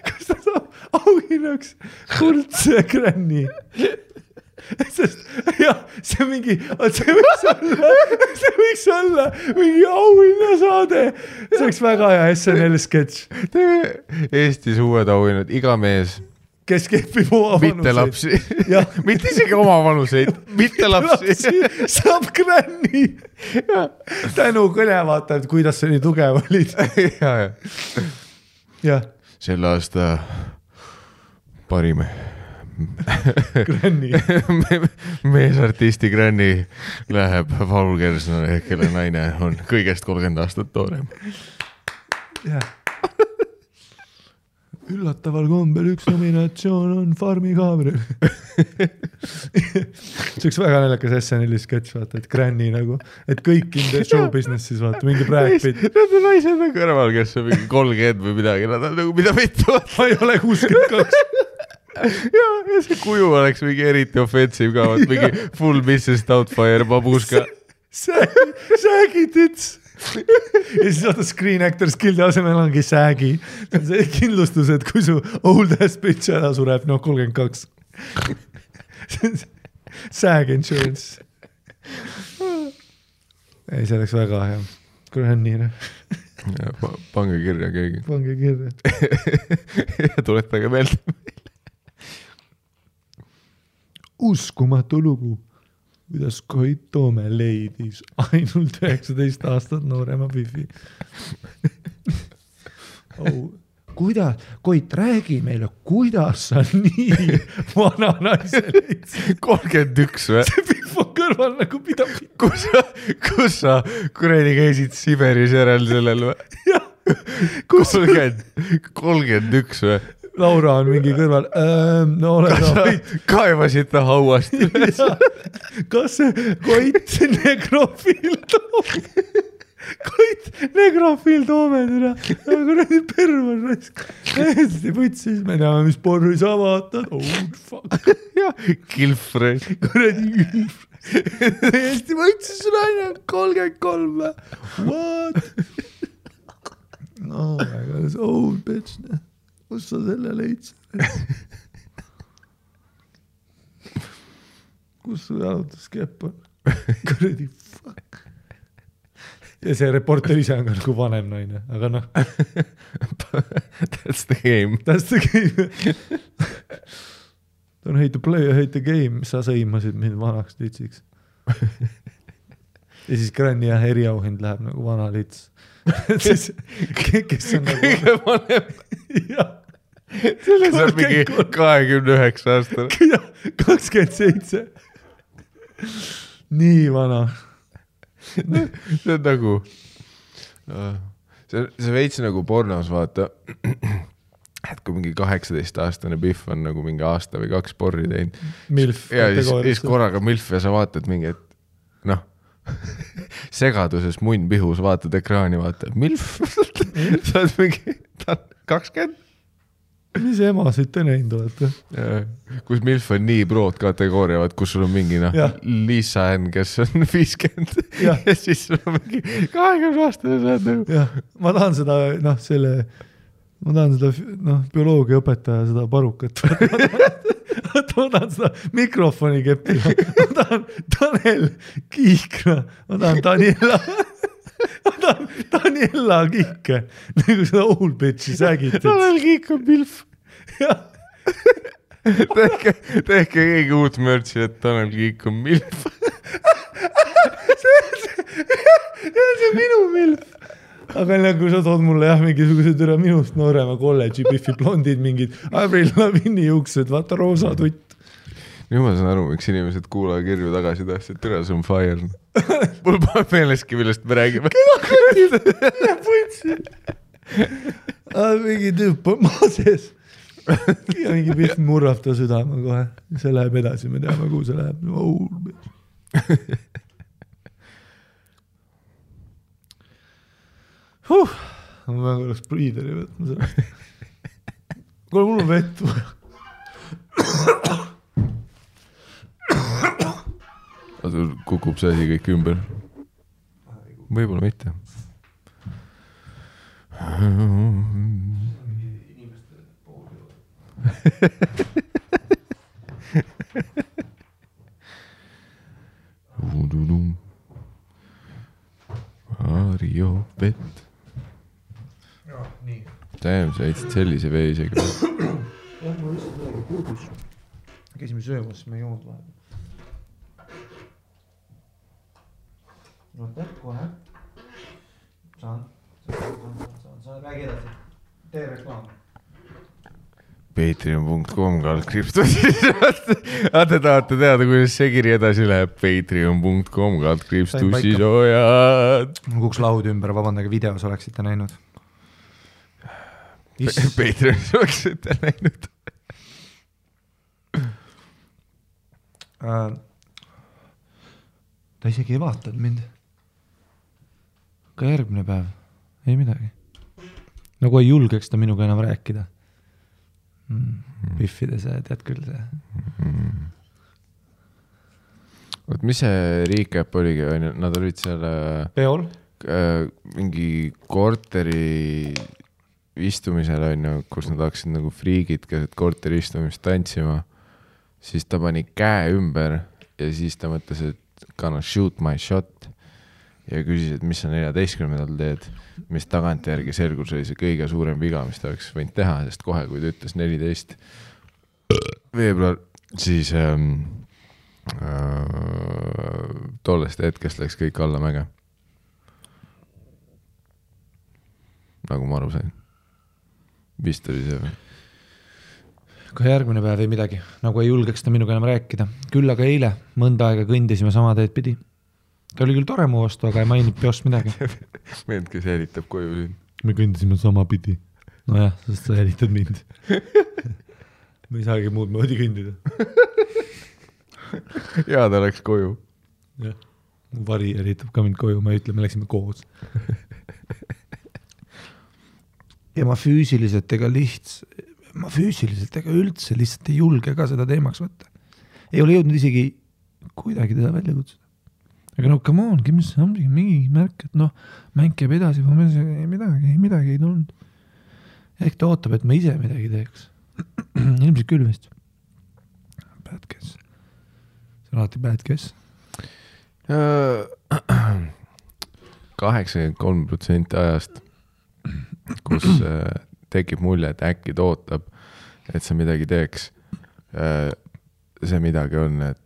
Kas ta saab auhinnaks kuldse Grammy? Sest, jah, see võiks olla mingi auhinnasaade. See oleks väga hea SNL sketš. Eestis uued auhinnad, iga mees. Kes kepib oma vanuseid. Mitte lapsi. Mitte isegi oma vanuseid. Mitte lapsi. Saab Granny. Tänu kõne vaata, et kuidas see nii tugev olid. Jah. Selle aasta parime. Granny. Meesartisti Granny läheb Paul Kersnale, kelle naine on kõigest 30 aastat toorem. Üllataval kombel üks nominatsioon on Farmi Gabriel. See oleks väga naljakas SNL sketš, vaata, et Granny nagu, et kõik in the show businessis, vaata, mingi Brad Pitt. Need on naised on kõrval, kes on mingi 30 või midagi, nad on nagu mida vittu. Ma ei ole 62. Ja see kuju oleks mingi eriti offensive ka, mingi full Mrs. Doubtfire babuška. Säägi tits. Ja siis vaata Screen Actors Guildi asemel ongi säägi. See on kindlustus, et kui su old ass bitch ära sureb, 32. Sääg insurance. Ei, see oleks väga hea. Granny. Pange kirja keegi. Pange kirja. Ja tuletage meelde. Uskumatu lugu, kuidas Koit Toome leidis ainult 19 aastat noorema Bifi. Kuidas, Koit, räägi meile, kuidas sa nii vana naise leidsid? 31 või? See Bif on kõrval nagu pidab. Kus sa kuredi käisid Siberis järel sellel või? Jah. 31 või? Laura on mingi kõrval. No ole kaevasid ta hauast. Kas see Koit negrofiil Toome? Koit negrofiil Toome türa. Nagu nädi pervan raisk. Hästi võtsis, me näeme, mis porri sa vaatad. Old fuck. Kilfre. Kuradi kilfre. Hästi võtsis sul aina 33. What? Oh my god, this old bitch. Kus sa selle leidsid? Kus su jalutuskepp on? Kuradi fuck. Ja see reporter ise on ka nagu vanem naine, aga noh. That's the game. That's the game. Don't hate the play, hate the game. Sa sõimasid mind vanaks litsiks. Ja siis Granny ja eriauhind läheb nagu vana lits. Siis, kes on nagu... Kõige vanem. Jah. Selles on mingi 29 aastane. 27. Nii vana. See on nagu, see veits nagu pornos vaata, et kui mingi 18-aastane Biff on nagu mingi aasta või 2 porri teinud. Milf. Ja siis korraga Milf ja sa vaatad mingi, et noh, segaduses munn pihus, vaatad ekraani, vaatad Milf. Sa oled mingi 20. Mis emasid te näinud olete? Kus Milf on nii broad kategooria, kus sul on mingi Lisa N, kes on 50 ja siis sul on mingi 20 aastane saad nagu. Jah, ma tahan seda, bioloogiaõpetaja seda parukat. Ma tahan seda mikrofoni keppida. Ma tahan Tanel Kiikna. Ma tahan Daniela Kiike. Nagu seda old bitchi sägid. Tanel Kiik on Milf. Tehke keegi uut mörtsi, et Tanel Kiik on Milf. See on minu Milf. Aga kui sa tood mulle mingisugused minust noorema kolledži Biffi blondid, mingid Avril Lavigne juuksed, vaata roosa tutt. Nüüd ma saan aru, miks inimesed kuulaja kirju tagasi tahtsid, tere, see on fire. Mul pole meeleski, millest me räägime. Keda putsi. Mingi tüüp on maa sees. Ja mingi Biff murrab ta südama kohe. See läheb edasi, me teame, kuhu see läheb. Ma oleks priideri võtma sellest. Kuule, mul on vett. Sul kukub see asi kõik ümber. Võib-olla mitte. Mario vett. Tähem, sa eitsid sellise vee isegi. Jah, ma lihtsalt midagi puudus. Käisime söömas, siis me ei joonud vahel. No kohe. Saan. Räägi edasi. Tee reklaam. Patreon.com /. Te tahate teada, kuidas see kiri edasi läheb. Patreon.com /tussisojad. Mul kuks laud ümber, vabandage, videos oleksite näinud. Patreonis oleksite näinud. Ta isegi ei vaatanud mind. Ka järgmine päev. Ei midagi. Nagu ei julgeks ta minuga enam rääkida. Biffide see, tead küll see. Oot, mis see recap oligi? Nad olid seal Peol? Mingi korteri istumisel, kus nad hakkasid nagu friigid keset korteri istumist tantsima. Siis ta pani käe ümber ja siis ta mõtles, et gonna shoot my shot ja küsis, et mis sa 14. teed, mis tagantjärgi selgus oli see kõige suurem viga, mis ta oleks võinud teha, sest kohe, kui ta ütles 14. veebruar, siis tollest hetkest läks kõik alla mäge. Nagu ma aru sain. Vist oli see või? Ka järgmine päev ei midagi, nagu ei julgeks ta minuga enam rääkida. Küll aga eile mõnda aega kõndisime sama teed pidi. Ta oli küll tore mu vastu, aga ei maininud peost midagi. Meend, kes jälitab koju siin. Me kõndisime sama pidi. No jah, sest sa jälitad mind. Me ei saagi muud moodi kõndida. Ja ta läks koju. Jah, mu vari jälitab ka mind koju, ma ei ütle, me läksime koos. Ja ma füüsiliselt ega üldse lihtsalt ei julge ka seda teemaks võtta. Ei ole jõudnud isegi kuidagi teda välja kutsuda. Aga no come on, give me something, mingi märk, et mäng käib edasi, midagi ei tulnud. Ehk ta ootab, et ma ise midagi teeks. Ilmselt küll vist. Bad guess. See on alati bad guess. 83% ajast, kus tekib mulje, et äkki ta ootab, et sa midagi teeks. See midagi on, et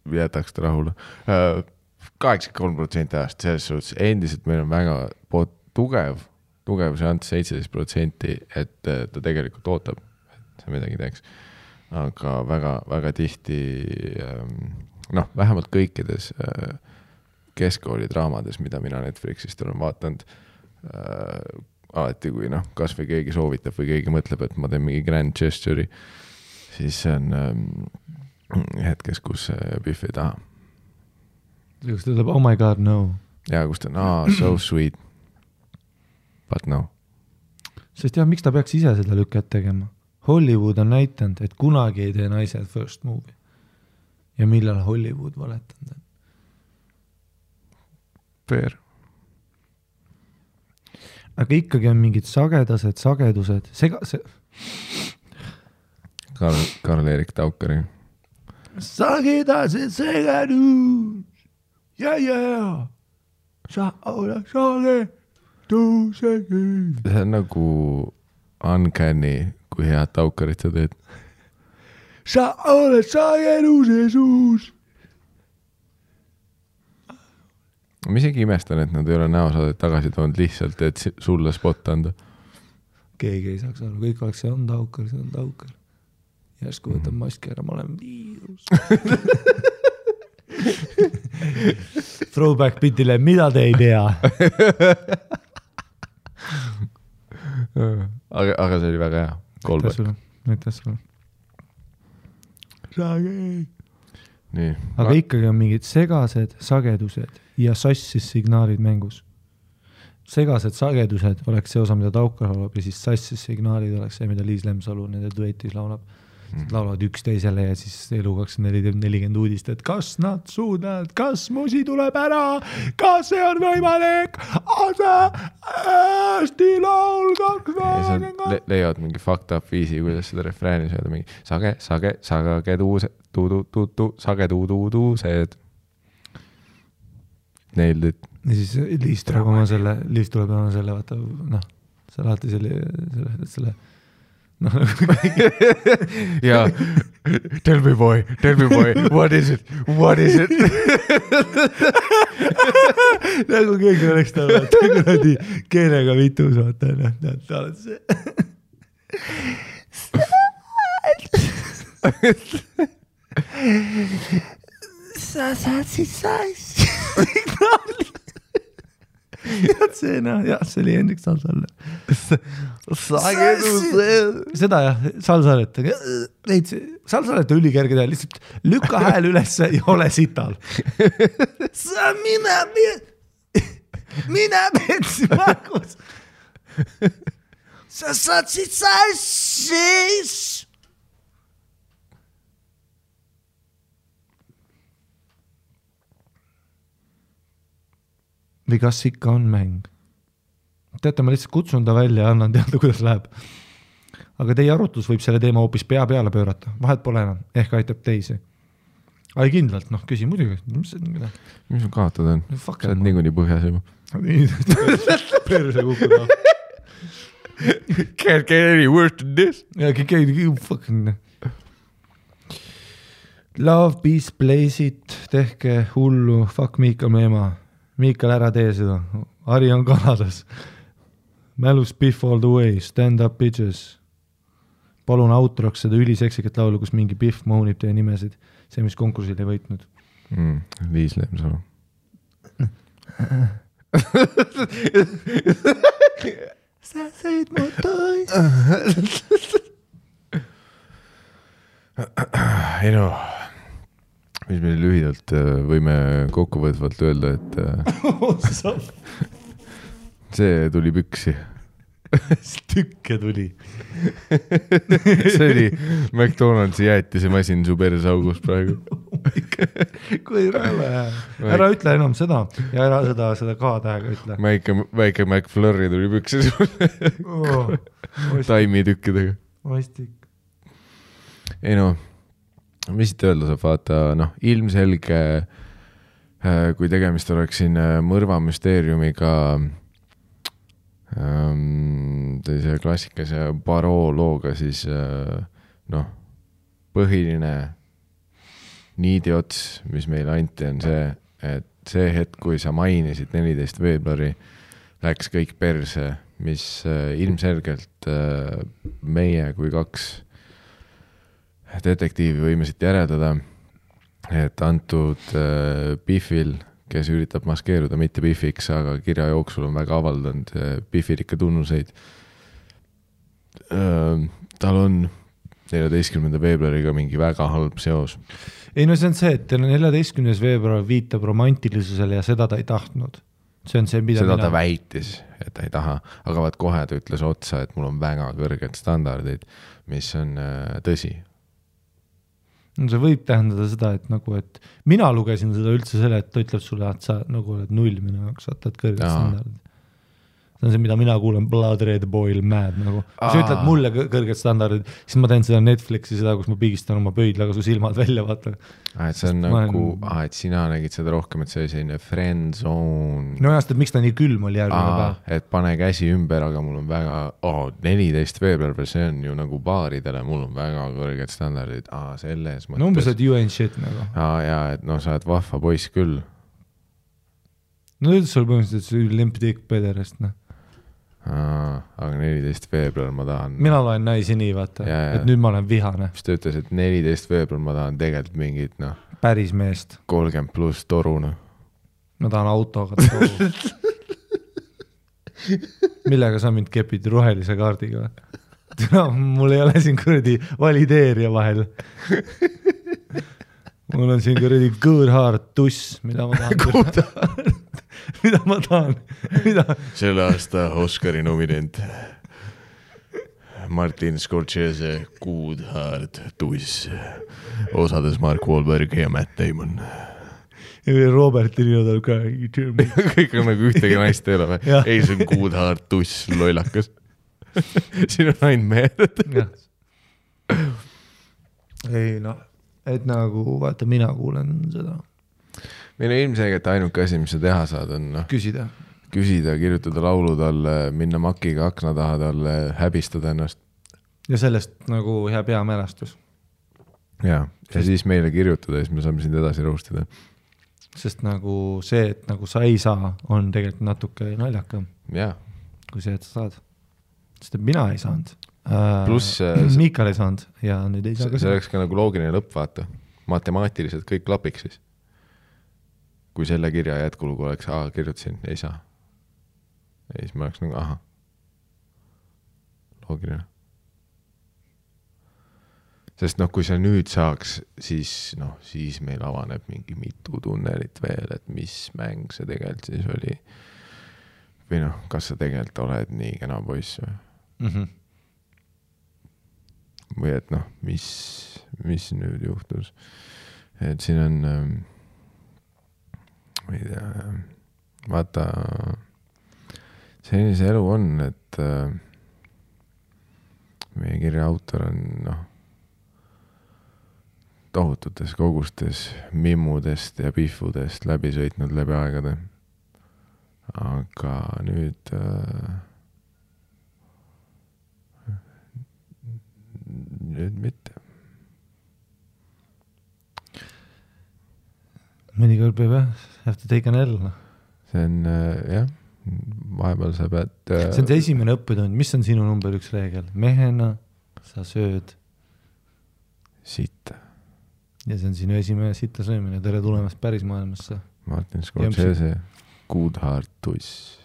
jätaks ta rahule. 83% ajast selles suhtes endiselt meil on väga tugev tugevuse ants 17%, et ta tegelikult ootab, et see midagi teeks. Aga väga, väga tihti, noh, vähemalt kõikides keskkooli draamades, mida mina Netflixist olen vaatanud, alati kui noh, kas või keegi soovitab või keegi mõtleb, et ma teen mingi grand gesture'i, siis see on hetkes, kus Biff ei taha. Kus ta ütleb, oh my god, no. Ja kus ta on, so sweet, but no. Sest jah, miks ta peaks ise seda lükket tegema? Hollywood on näitanud, et kunagi ei tee naised first movie. Ja millal Hollywood valetanud on? Fair. Aga ikkagi on mingid sagedused. Karl-Erik Taukari. Sagedused. Ja. Sa oled sagedused. See on nagu uncanny, kui head Taukarit sa teed. Sa oled sageduse suus. Ma isegi imestan, et nad ei ole näosaadet tagasi toonud lihtsalt, et sulle spot anda. Keegi ei saaks aru, kõik oleks, see on Taukar. Järsku võtab maski ära, ma olen viirus. Throwback bitile, mida te ei tea? aga see oli väga hea. Näitas sulle. Nii. Aga ikkagi on mingid segased sagedused ja sassis signaalid mängus. Segased sagedused oleks see osa, mida Taukar laulab, ja siis sassis signaalid oleks see, mida Liis Lemsalu nende duetis laulab. Laulavad üksteisele ja siis elu 2440 uudist, et kas nad suudavad, kas musi tuleb ära, kas see on võimalik, hästi laul 2. Leiavad mingi fucked up viisi, kuidas seda refrääni sööda, mingi sagedused. Nailed it. Ja siis Liis tuleb oma selle, vaata, noh, see alati selle ja tell me boy, what is it? Nagu keegi oleks ta kuradi keelega vitus, vaata, ta oled see. Sa saad siis signaali. See oli Hendrik Salsalle. Seda jah, Salsalet. Salsalet on ülikerge teha, lihtsalt lükka hääl üles ja ole sital. Sa mina petsi märgus. Sa saad siit sassis. Või kas ikka on mäng? Teate, ma lihtsalt kutsun ta välja ja annan teada, kuidas läheb. Aga teie arutlus võib selle teema hoopis pea peale pöörata. Vahet pole enam, ehk aitab teisi. Ai kindlalt, noh, küsi muidugi. Mis sul kaotada on? Sa oled niikuinii põhjas juba. Perse kukkuda. Can't get any worse than this. Ja, fucking. Love, peace, place it, tehke hullu, fuck Miikal Meema. Miikal, ära tee seda. Ari on Kanadas. Mälus Biff all the way. Stand up bitches. Palun outroks seda üliseksikat laulu, kus mingi Biff moonib teie nimesid. See, mis konkursil ei võitnud. Liis Lemsalu. Sa sõid mu tois. Ei no, mis me lühidalt võime kokkuvõtvalt öelda, et see tuli püksi. Tükke tuli. See oli McDonaldsi jäätise masin su persaugus praegu. Kui rõve. Ära ütle enam seda ja ära seda K-tähega ütle. Väike McFlurry tuli püksi sulle. Taimi tükkidega. Vastik. Ei no, mis siit öelda saab vaata, noh, ilmselge, kui tegemist oleks siin mõrvamüsteeriumiga, sellise klassikase Baroo looga, siis noh, põhiline niidiots, mis meile anti, on see, et see hetk, kui sa mainisid 14 veebruari, läks kõik perse mis ilmselgelt meie kui 2 detektiivi võime siit järeldada, et antud Biffil, kes üritab maskeeruda mitte Biffiks, aga kirja jooksul on väga avaldanud Biffilikke tunnuseid. Tal on 14. veebruariga mingi väga halb seos. Ei no see on see, et 14. veebruar viitab romantilisusele ja seda ta ei tahtnud. See on see, mida seda ta väitis, et ta ei taha, aga vaat kohe ta ütles otsa, et mul on väga kõrged standardid, mis on tõsi. No see võib tähendada seda, et nagu, et mina lugesin seda üldse selle, et ta ütleb sulle, et sa nagu oled 0 minu jaoks, sa oled kõrged standardid. See on see, mida mina kuulen, Blood Red Boil Mad nagu. Kui sa ütled mulle kõrged standardid, siis ma teen seda Netflixi, seda, kus ma pigistan oma pöidlaga su silmad välja, vaata. Et see on nagu, et sina nägid seda rohkem, et see oli selline friend zone. No jast, et miks ta nii külm oli järgmine päev. Et pane käsi ümber, aga mul on väga, 14. veebruar, see on ju nagu baaridele, mul on väga kõrged standardid. Selles mõttes. No umbes, et you ain't shit nagu. Ja, et no sa oled vahva poiss küll. No üldse sul põhimõtteliselt see limp dick pederast, noh. Aga 14. veebruar ma tahan. Mina loen naisi nii, vaata, et nüüd ma olen vihane. Mis ta ütles, et 14. veebruar ma tahan tegelikult mingit, päris meest. 30 pluss toru, Ma tahan autoga toru. Millega sa mind kepid rohelise kaardiga? Mul ei ole siin kuradi valideerija vahel. Mul on siin kuradi good heart tuss, mida ma tahan. Mida ma tahan? Selle aasta Oscari nominent Martin Scorsese Good Heart tuss, osades Mark Wahlberg ja Matt Damon. Ja Robert Linodal ka. Kõik on nagu ühtegi naist ei ole või? Ei, see on Good Heart tuss, lollakas. Siin on ainult mehed. Ei et nagu, vaata, mina kuulen seda. Meil on ilmselgelt ainuke asi, mis sa teha saad, on küsida, kirjutada laulu talle, minna makiga akna taha talle, häbistada ennast. Ja sellest nagu hea peamälestus. Ja siis meile kirjutada, siis me saame sind edasi roostada. Sest nagu see, et nagu sa ei saa, on tegelikult natuke naljakam. Ja. Kui see, et sa saad. Sest et mina ei saanud. Plus Miikal ei saanud ja nüüd ei saa ka. See oleks ka nagu loogiline lõpp, vaata. Matemaatiliselt kõik klapiks siis. Kui selle kirja jätkulugu oleks, kirjutasin, ei saa. Ja siis ma oleks nagu, loogiline. Sest kui sa nüüd saaks, siis meil avaneb mingi mitu tunnelit veel, et mis mäng see tegelikult siis oli. Või kas sa tegelikult oled nii kena poiss või? Või et mis nüüd juhtus. Et siin on... ma ei tea, vaata, selline see elu on, et meie kirja autor on tohututes kogustes mimmudest ja pihvudest läbi sõitnud läbi aegade. Aga nüüd mitte. Mõnikord peab have to take an L. See on, jah, vahepeal sa pead... See on see esimene õppetund. Mis on sinu number 1 reegel? Mehena sa sööd sitta. Ja see on sinu esimene sitta söömine. Tere tulemast päris maailmasse. Martin Scorsese, Good Heart tuss.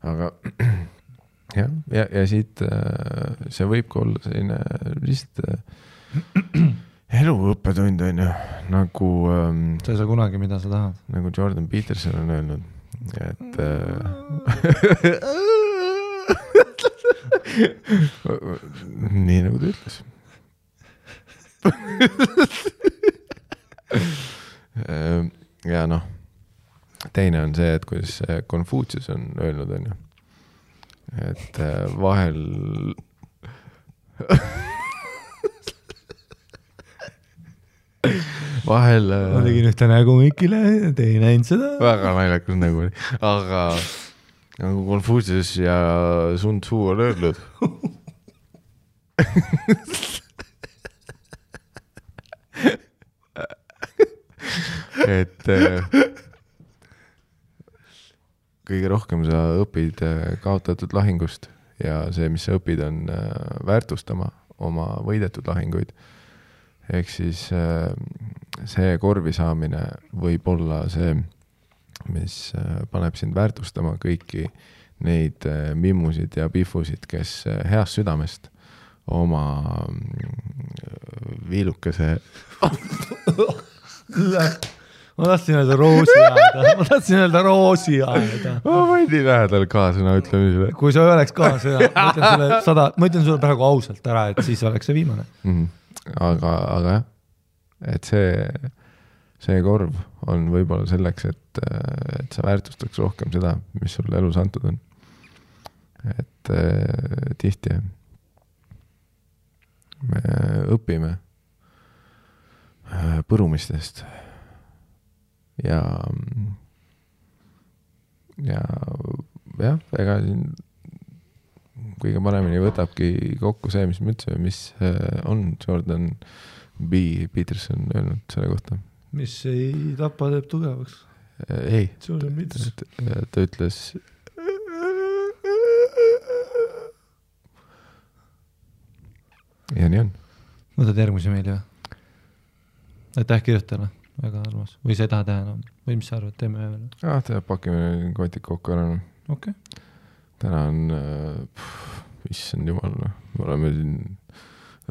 Aga ja siit see võib ka olla selline lihtsalt... eluõppetund on ju, nagu... sa ei saa kunagi, mida sa tahad. Nagu Jordan Peterson on öelnud, et... nii nagu ta ütles. Ja teine on see, et kuidas Confucius on öelnud, on ju, et vahel... vahel... ma tegin ühte nägu Mikile, te ei näinud seda. Väga naljakas nägu oli. Aga nagu Confucius ja Sun Tzu on öelnud. et kõige rohkem sa õpid kaotatud lahingust ja see, mis sa õpid, on väärtustama oma võidetud lahinguid. Ehk siis see korvi saamine võib olla see, mis paneb sind väärtustama kõiki neid mimmusid ja pifusid, kes heast südamest oma viilukese ma tahtsin öelda roosi aeda. Ma võin nii lähedal kaasõna ütlemisele. Kui sa oleks kaasõna, ma ütlen sulle praegu ausalt ära, et siis oleks see viimane. Aga jah, et see korv on võib-olla selleks, et sa väärtustaks rohkem seda, mis sulle elus antud on. Et tihti me õpime põrumistest ja jah, ega siin kõige paremini võtabki kokku see, mis me ütlesime, mis on Jordan B. Peterson öelnud selle kohta. Mis ei tapa teeb tugevaks. Ei, ta ütles ja nii on. Võtad järgmise meili või? Aitäh kirjutajale, väga armas. Või sa ei taha teha enam? Või mis sa arvad, teeme ühe veel? Pakime kotid kokku ära. Okay. Täna on issand jumal, me oleme siin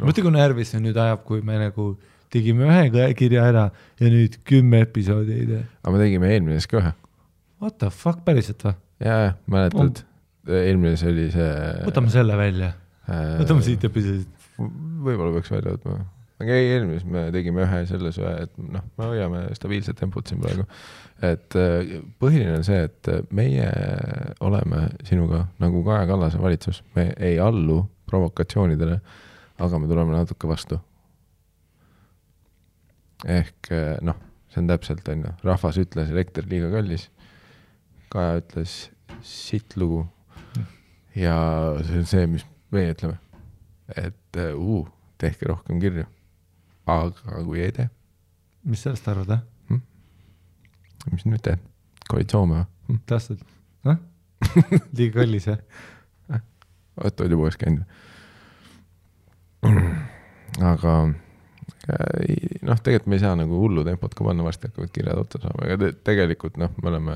mõtle, kui närvis see nüüd ajab, kui me nagu tegime ühe kirja ära ja nüüd 10 episoodi ei tee. Aga me tegime eelmises ka ühe. What the fuck, päriselt või? Jaa, mäletad, eelmises oli see võtame selle välja. Võtame siit episoodid. Võib-olla peaks välja võtma. Aga eelmises me tegime ühe selles ühe, et me hoiame stabiilset tempot siin praegu. Et põhiline on see, et meie oleme sinuga nagu Kaja Kallase valitsus. Me ei allu provokatsioonidele, aga me tuleme natuke vastu. Ehk see on täpselt, rahvas ütles elekter liiga kallis. Kaja ütles sitt lugu. Ja see on see, mis meie ütleme. Et tehke rohkem kirju. Aga kui ei tee. Mis sellest arvad, Mis nüüd teed? Koalitsioome või? Tähtsalt. Liiga kallis, jah? Oot juba uues käinud. Aga tegelikult me ei saa nagu hullu tempot ka panna, varsti hakkavad kirjad otsa saama. Aga tegelikult me oleme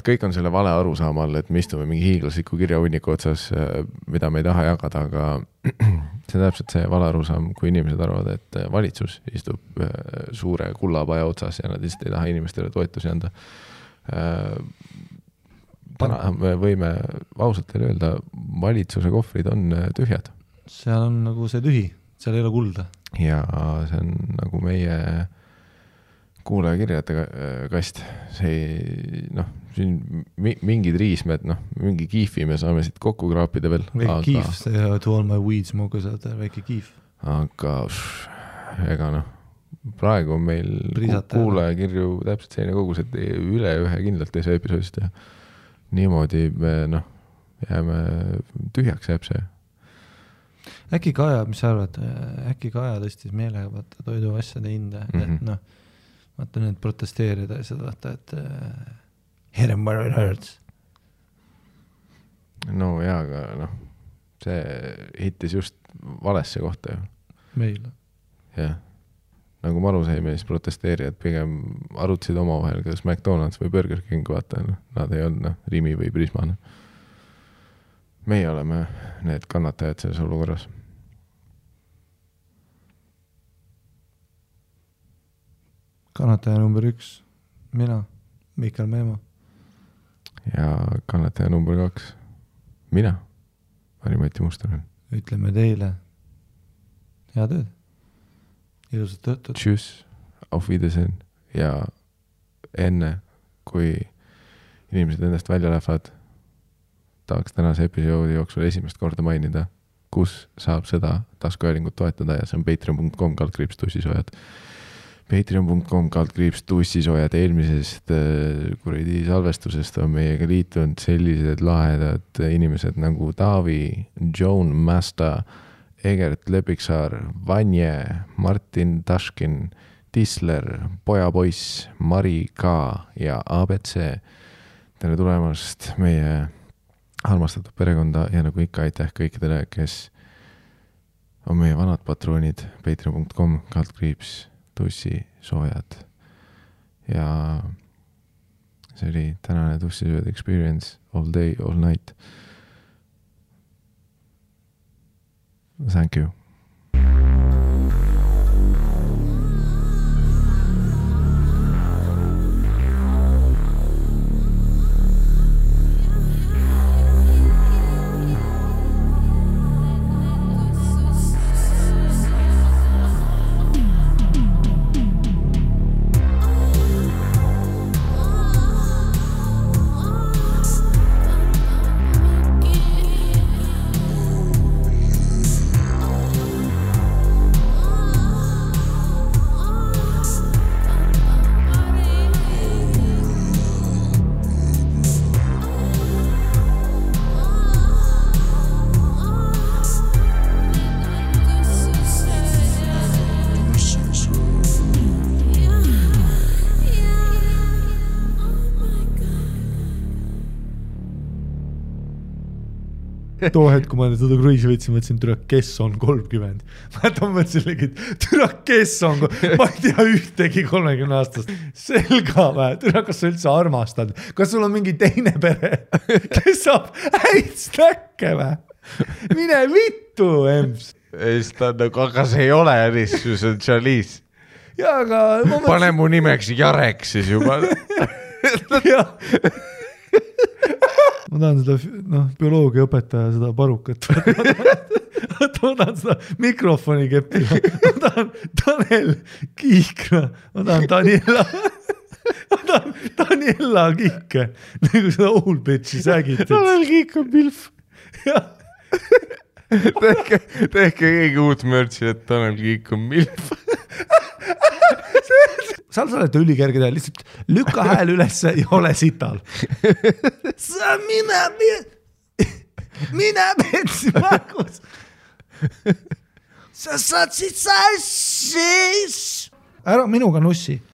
kõik on selle vale arusaama all, et me istume mingi hiiglasliku kirjahunniku otsas, mida me ei taha jagada, aga see on täpselt see vale arusaam, kui inimesed arvavad, et valitsus istub suure kullapaja otsas ja nad lihtsalt ei taha inimestele toetusi anda. Täna me võime ausalt teile öelda, valitsuse kohvrid on tühjad. Seal on nagu see tühi, seal ei ole kulda. Ja see on nagu meie kuulaja kirjade kast. See siin mingid riismed, mingi kiifi me saame siit kokku kraapida veel. Väike kiif, see to all my weed smoke saad, väike kiif. Aga ega praegu on meil kuulaja kirju täpselt selline kogus, et üle ühe kindlalt ei saa episoodist ja niimoodi me jääme tühjaks jääb see. Äkki Kaja, mis sa arvad, äkki Kaja tõstis meelega vaata toidu asjade hinde, et vaata nüüd protesteerida ja seda vaata, et hit him where it hurts. No jaa, aga see hittis just valesse kohta ju. Meil. Jah. Nagu Maru saime, siis protesteerijad pigem arutasid omavahel, kas McDonald's või Burger King, vaata, nad ei olnud Rimi või Prisma. Meie oleme need kannatajad selles olukorras. Kannataja number 1, mina, Mikael Meemo. Ja kannataja number 2, mina, Mari-Mati Mustonen. Ütleme teile, hea tööd, ilusat töötud. Tšüss, auf Wiedersehen ja enne, kui inimesed endast välja lähevad, tahaks tänase episoodi jooksul esimest korda mainida, kus saab seda taskuhäälingut toetada ja see on patreon.com/tussisojad. Patreon.com/tussisojad eelmisest kuradi salvestusest on meiega liitunud sellised lahedad inimesed nagu Taavi, Joan Masta, Egert Lepiksaar, Vanje, Martin Taškin, Tisler, Pojapoiss, Mari K ja ABC. tere tulemast meie armastatud perekonda ja nagu ikka aitäh kõikidele, kes on meie vanad patroonid patreon.com/tussi soojad ja see oli tänane Tussi soojad experience all day, all night. Thank you. Too hetk, kui ma seda kruiisi võtsin, mõtlesin, türa, kes on 30. Ma mõtlesin, türa, kes on, ma ei tea ühtegi 30 aastast. Selga või, türa, kas sa üldse armastad? Kas sul on mingi teine pere, kes saab häid snäkke või? Mine vittu, Ems. Aga see ei ole ärissu, see on Charlize. Ja, aga... Pane mu nimeks Jarek siis juba. Jah. Ma tahan seda bioloogia õpetaja seda parukat. Ma tahan seda mikrofoni keppida. Ma tahan Tanel Kiikra. Ma tahan Daniela Kiike. Nagu seda old bitchi sägit. Tanel Kiik on milf. Tehke keegi uut mörtsi, et Tanel Kiik on milf. Sa oled ülikerge teha, lihtsalt lükka hääl ülesse ja ole sital. Sa mine petsi märgus. Sa saad siit sassis. Ära minuga nussi.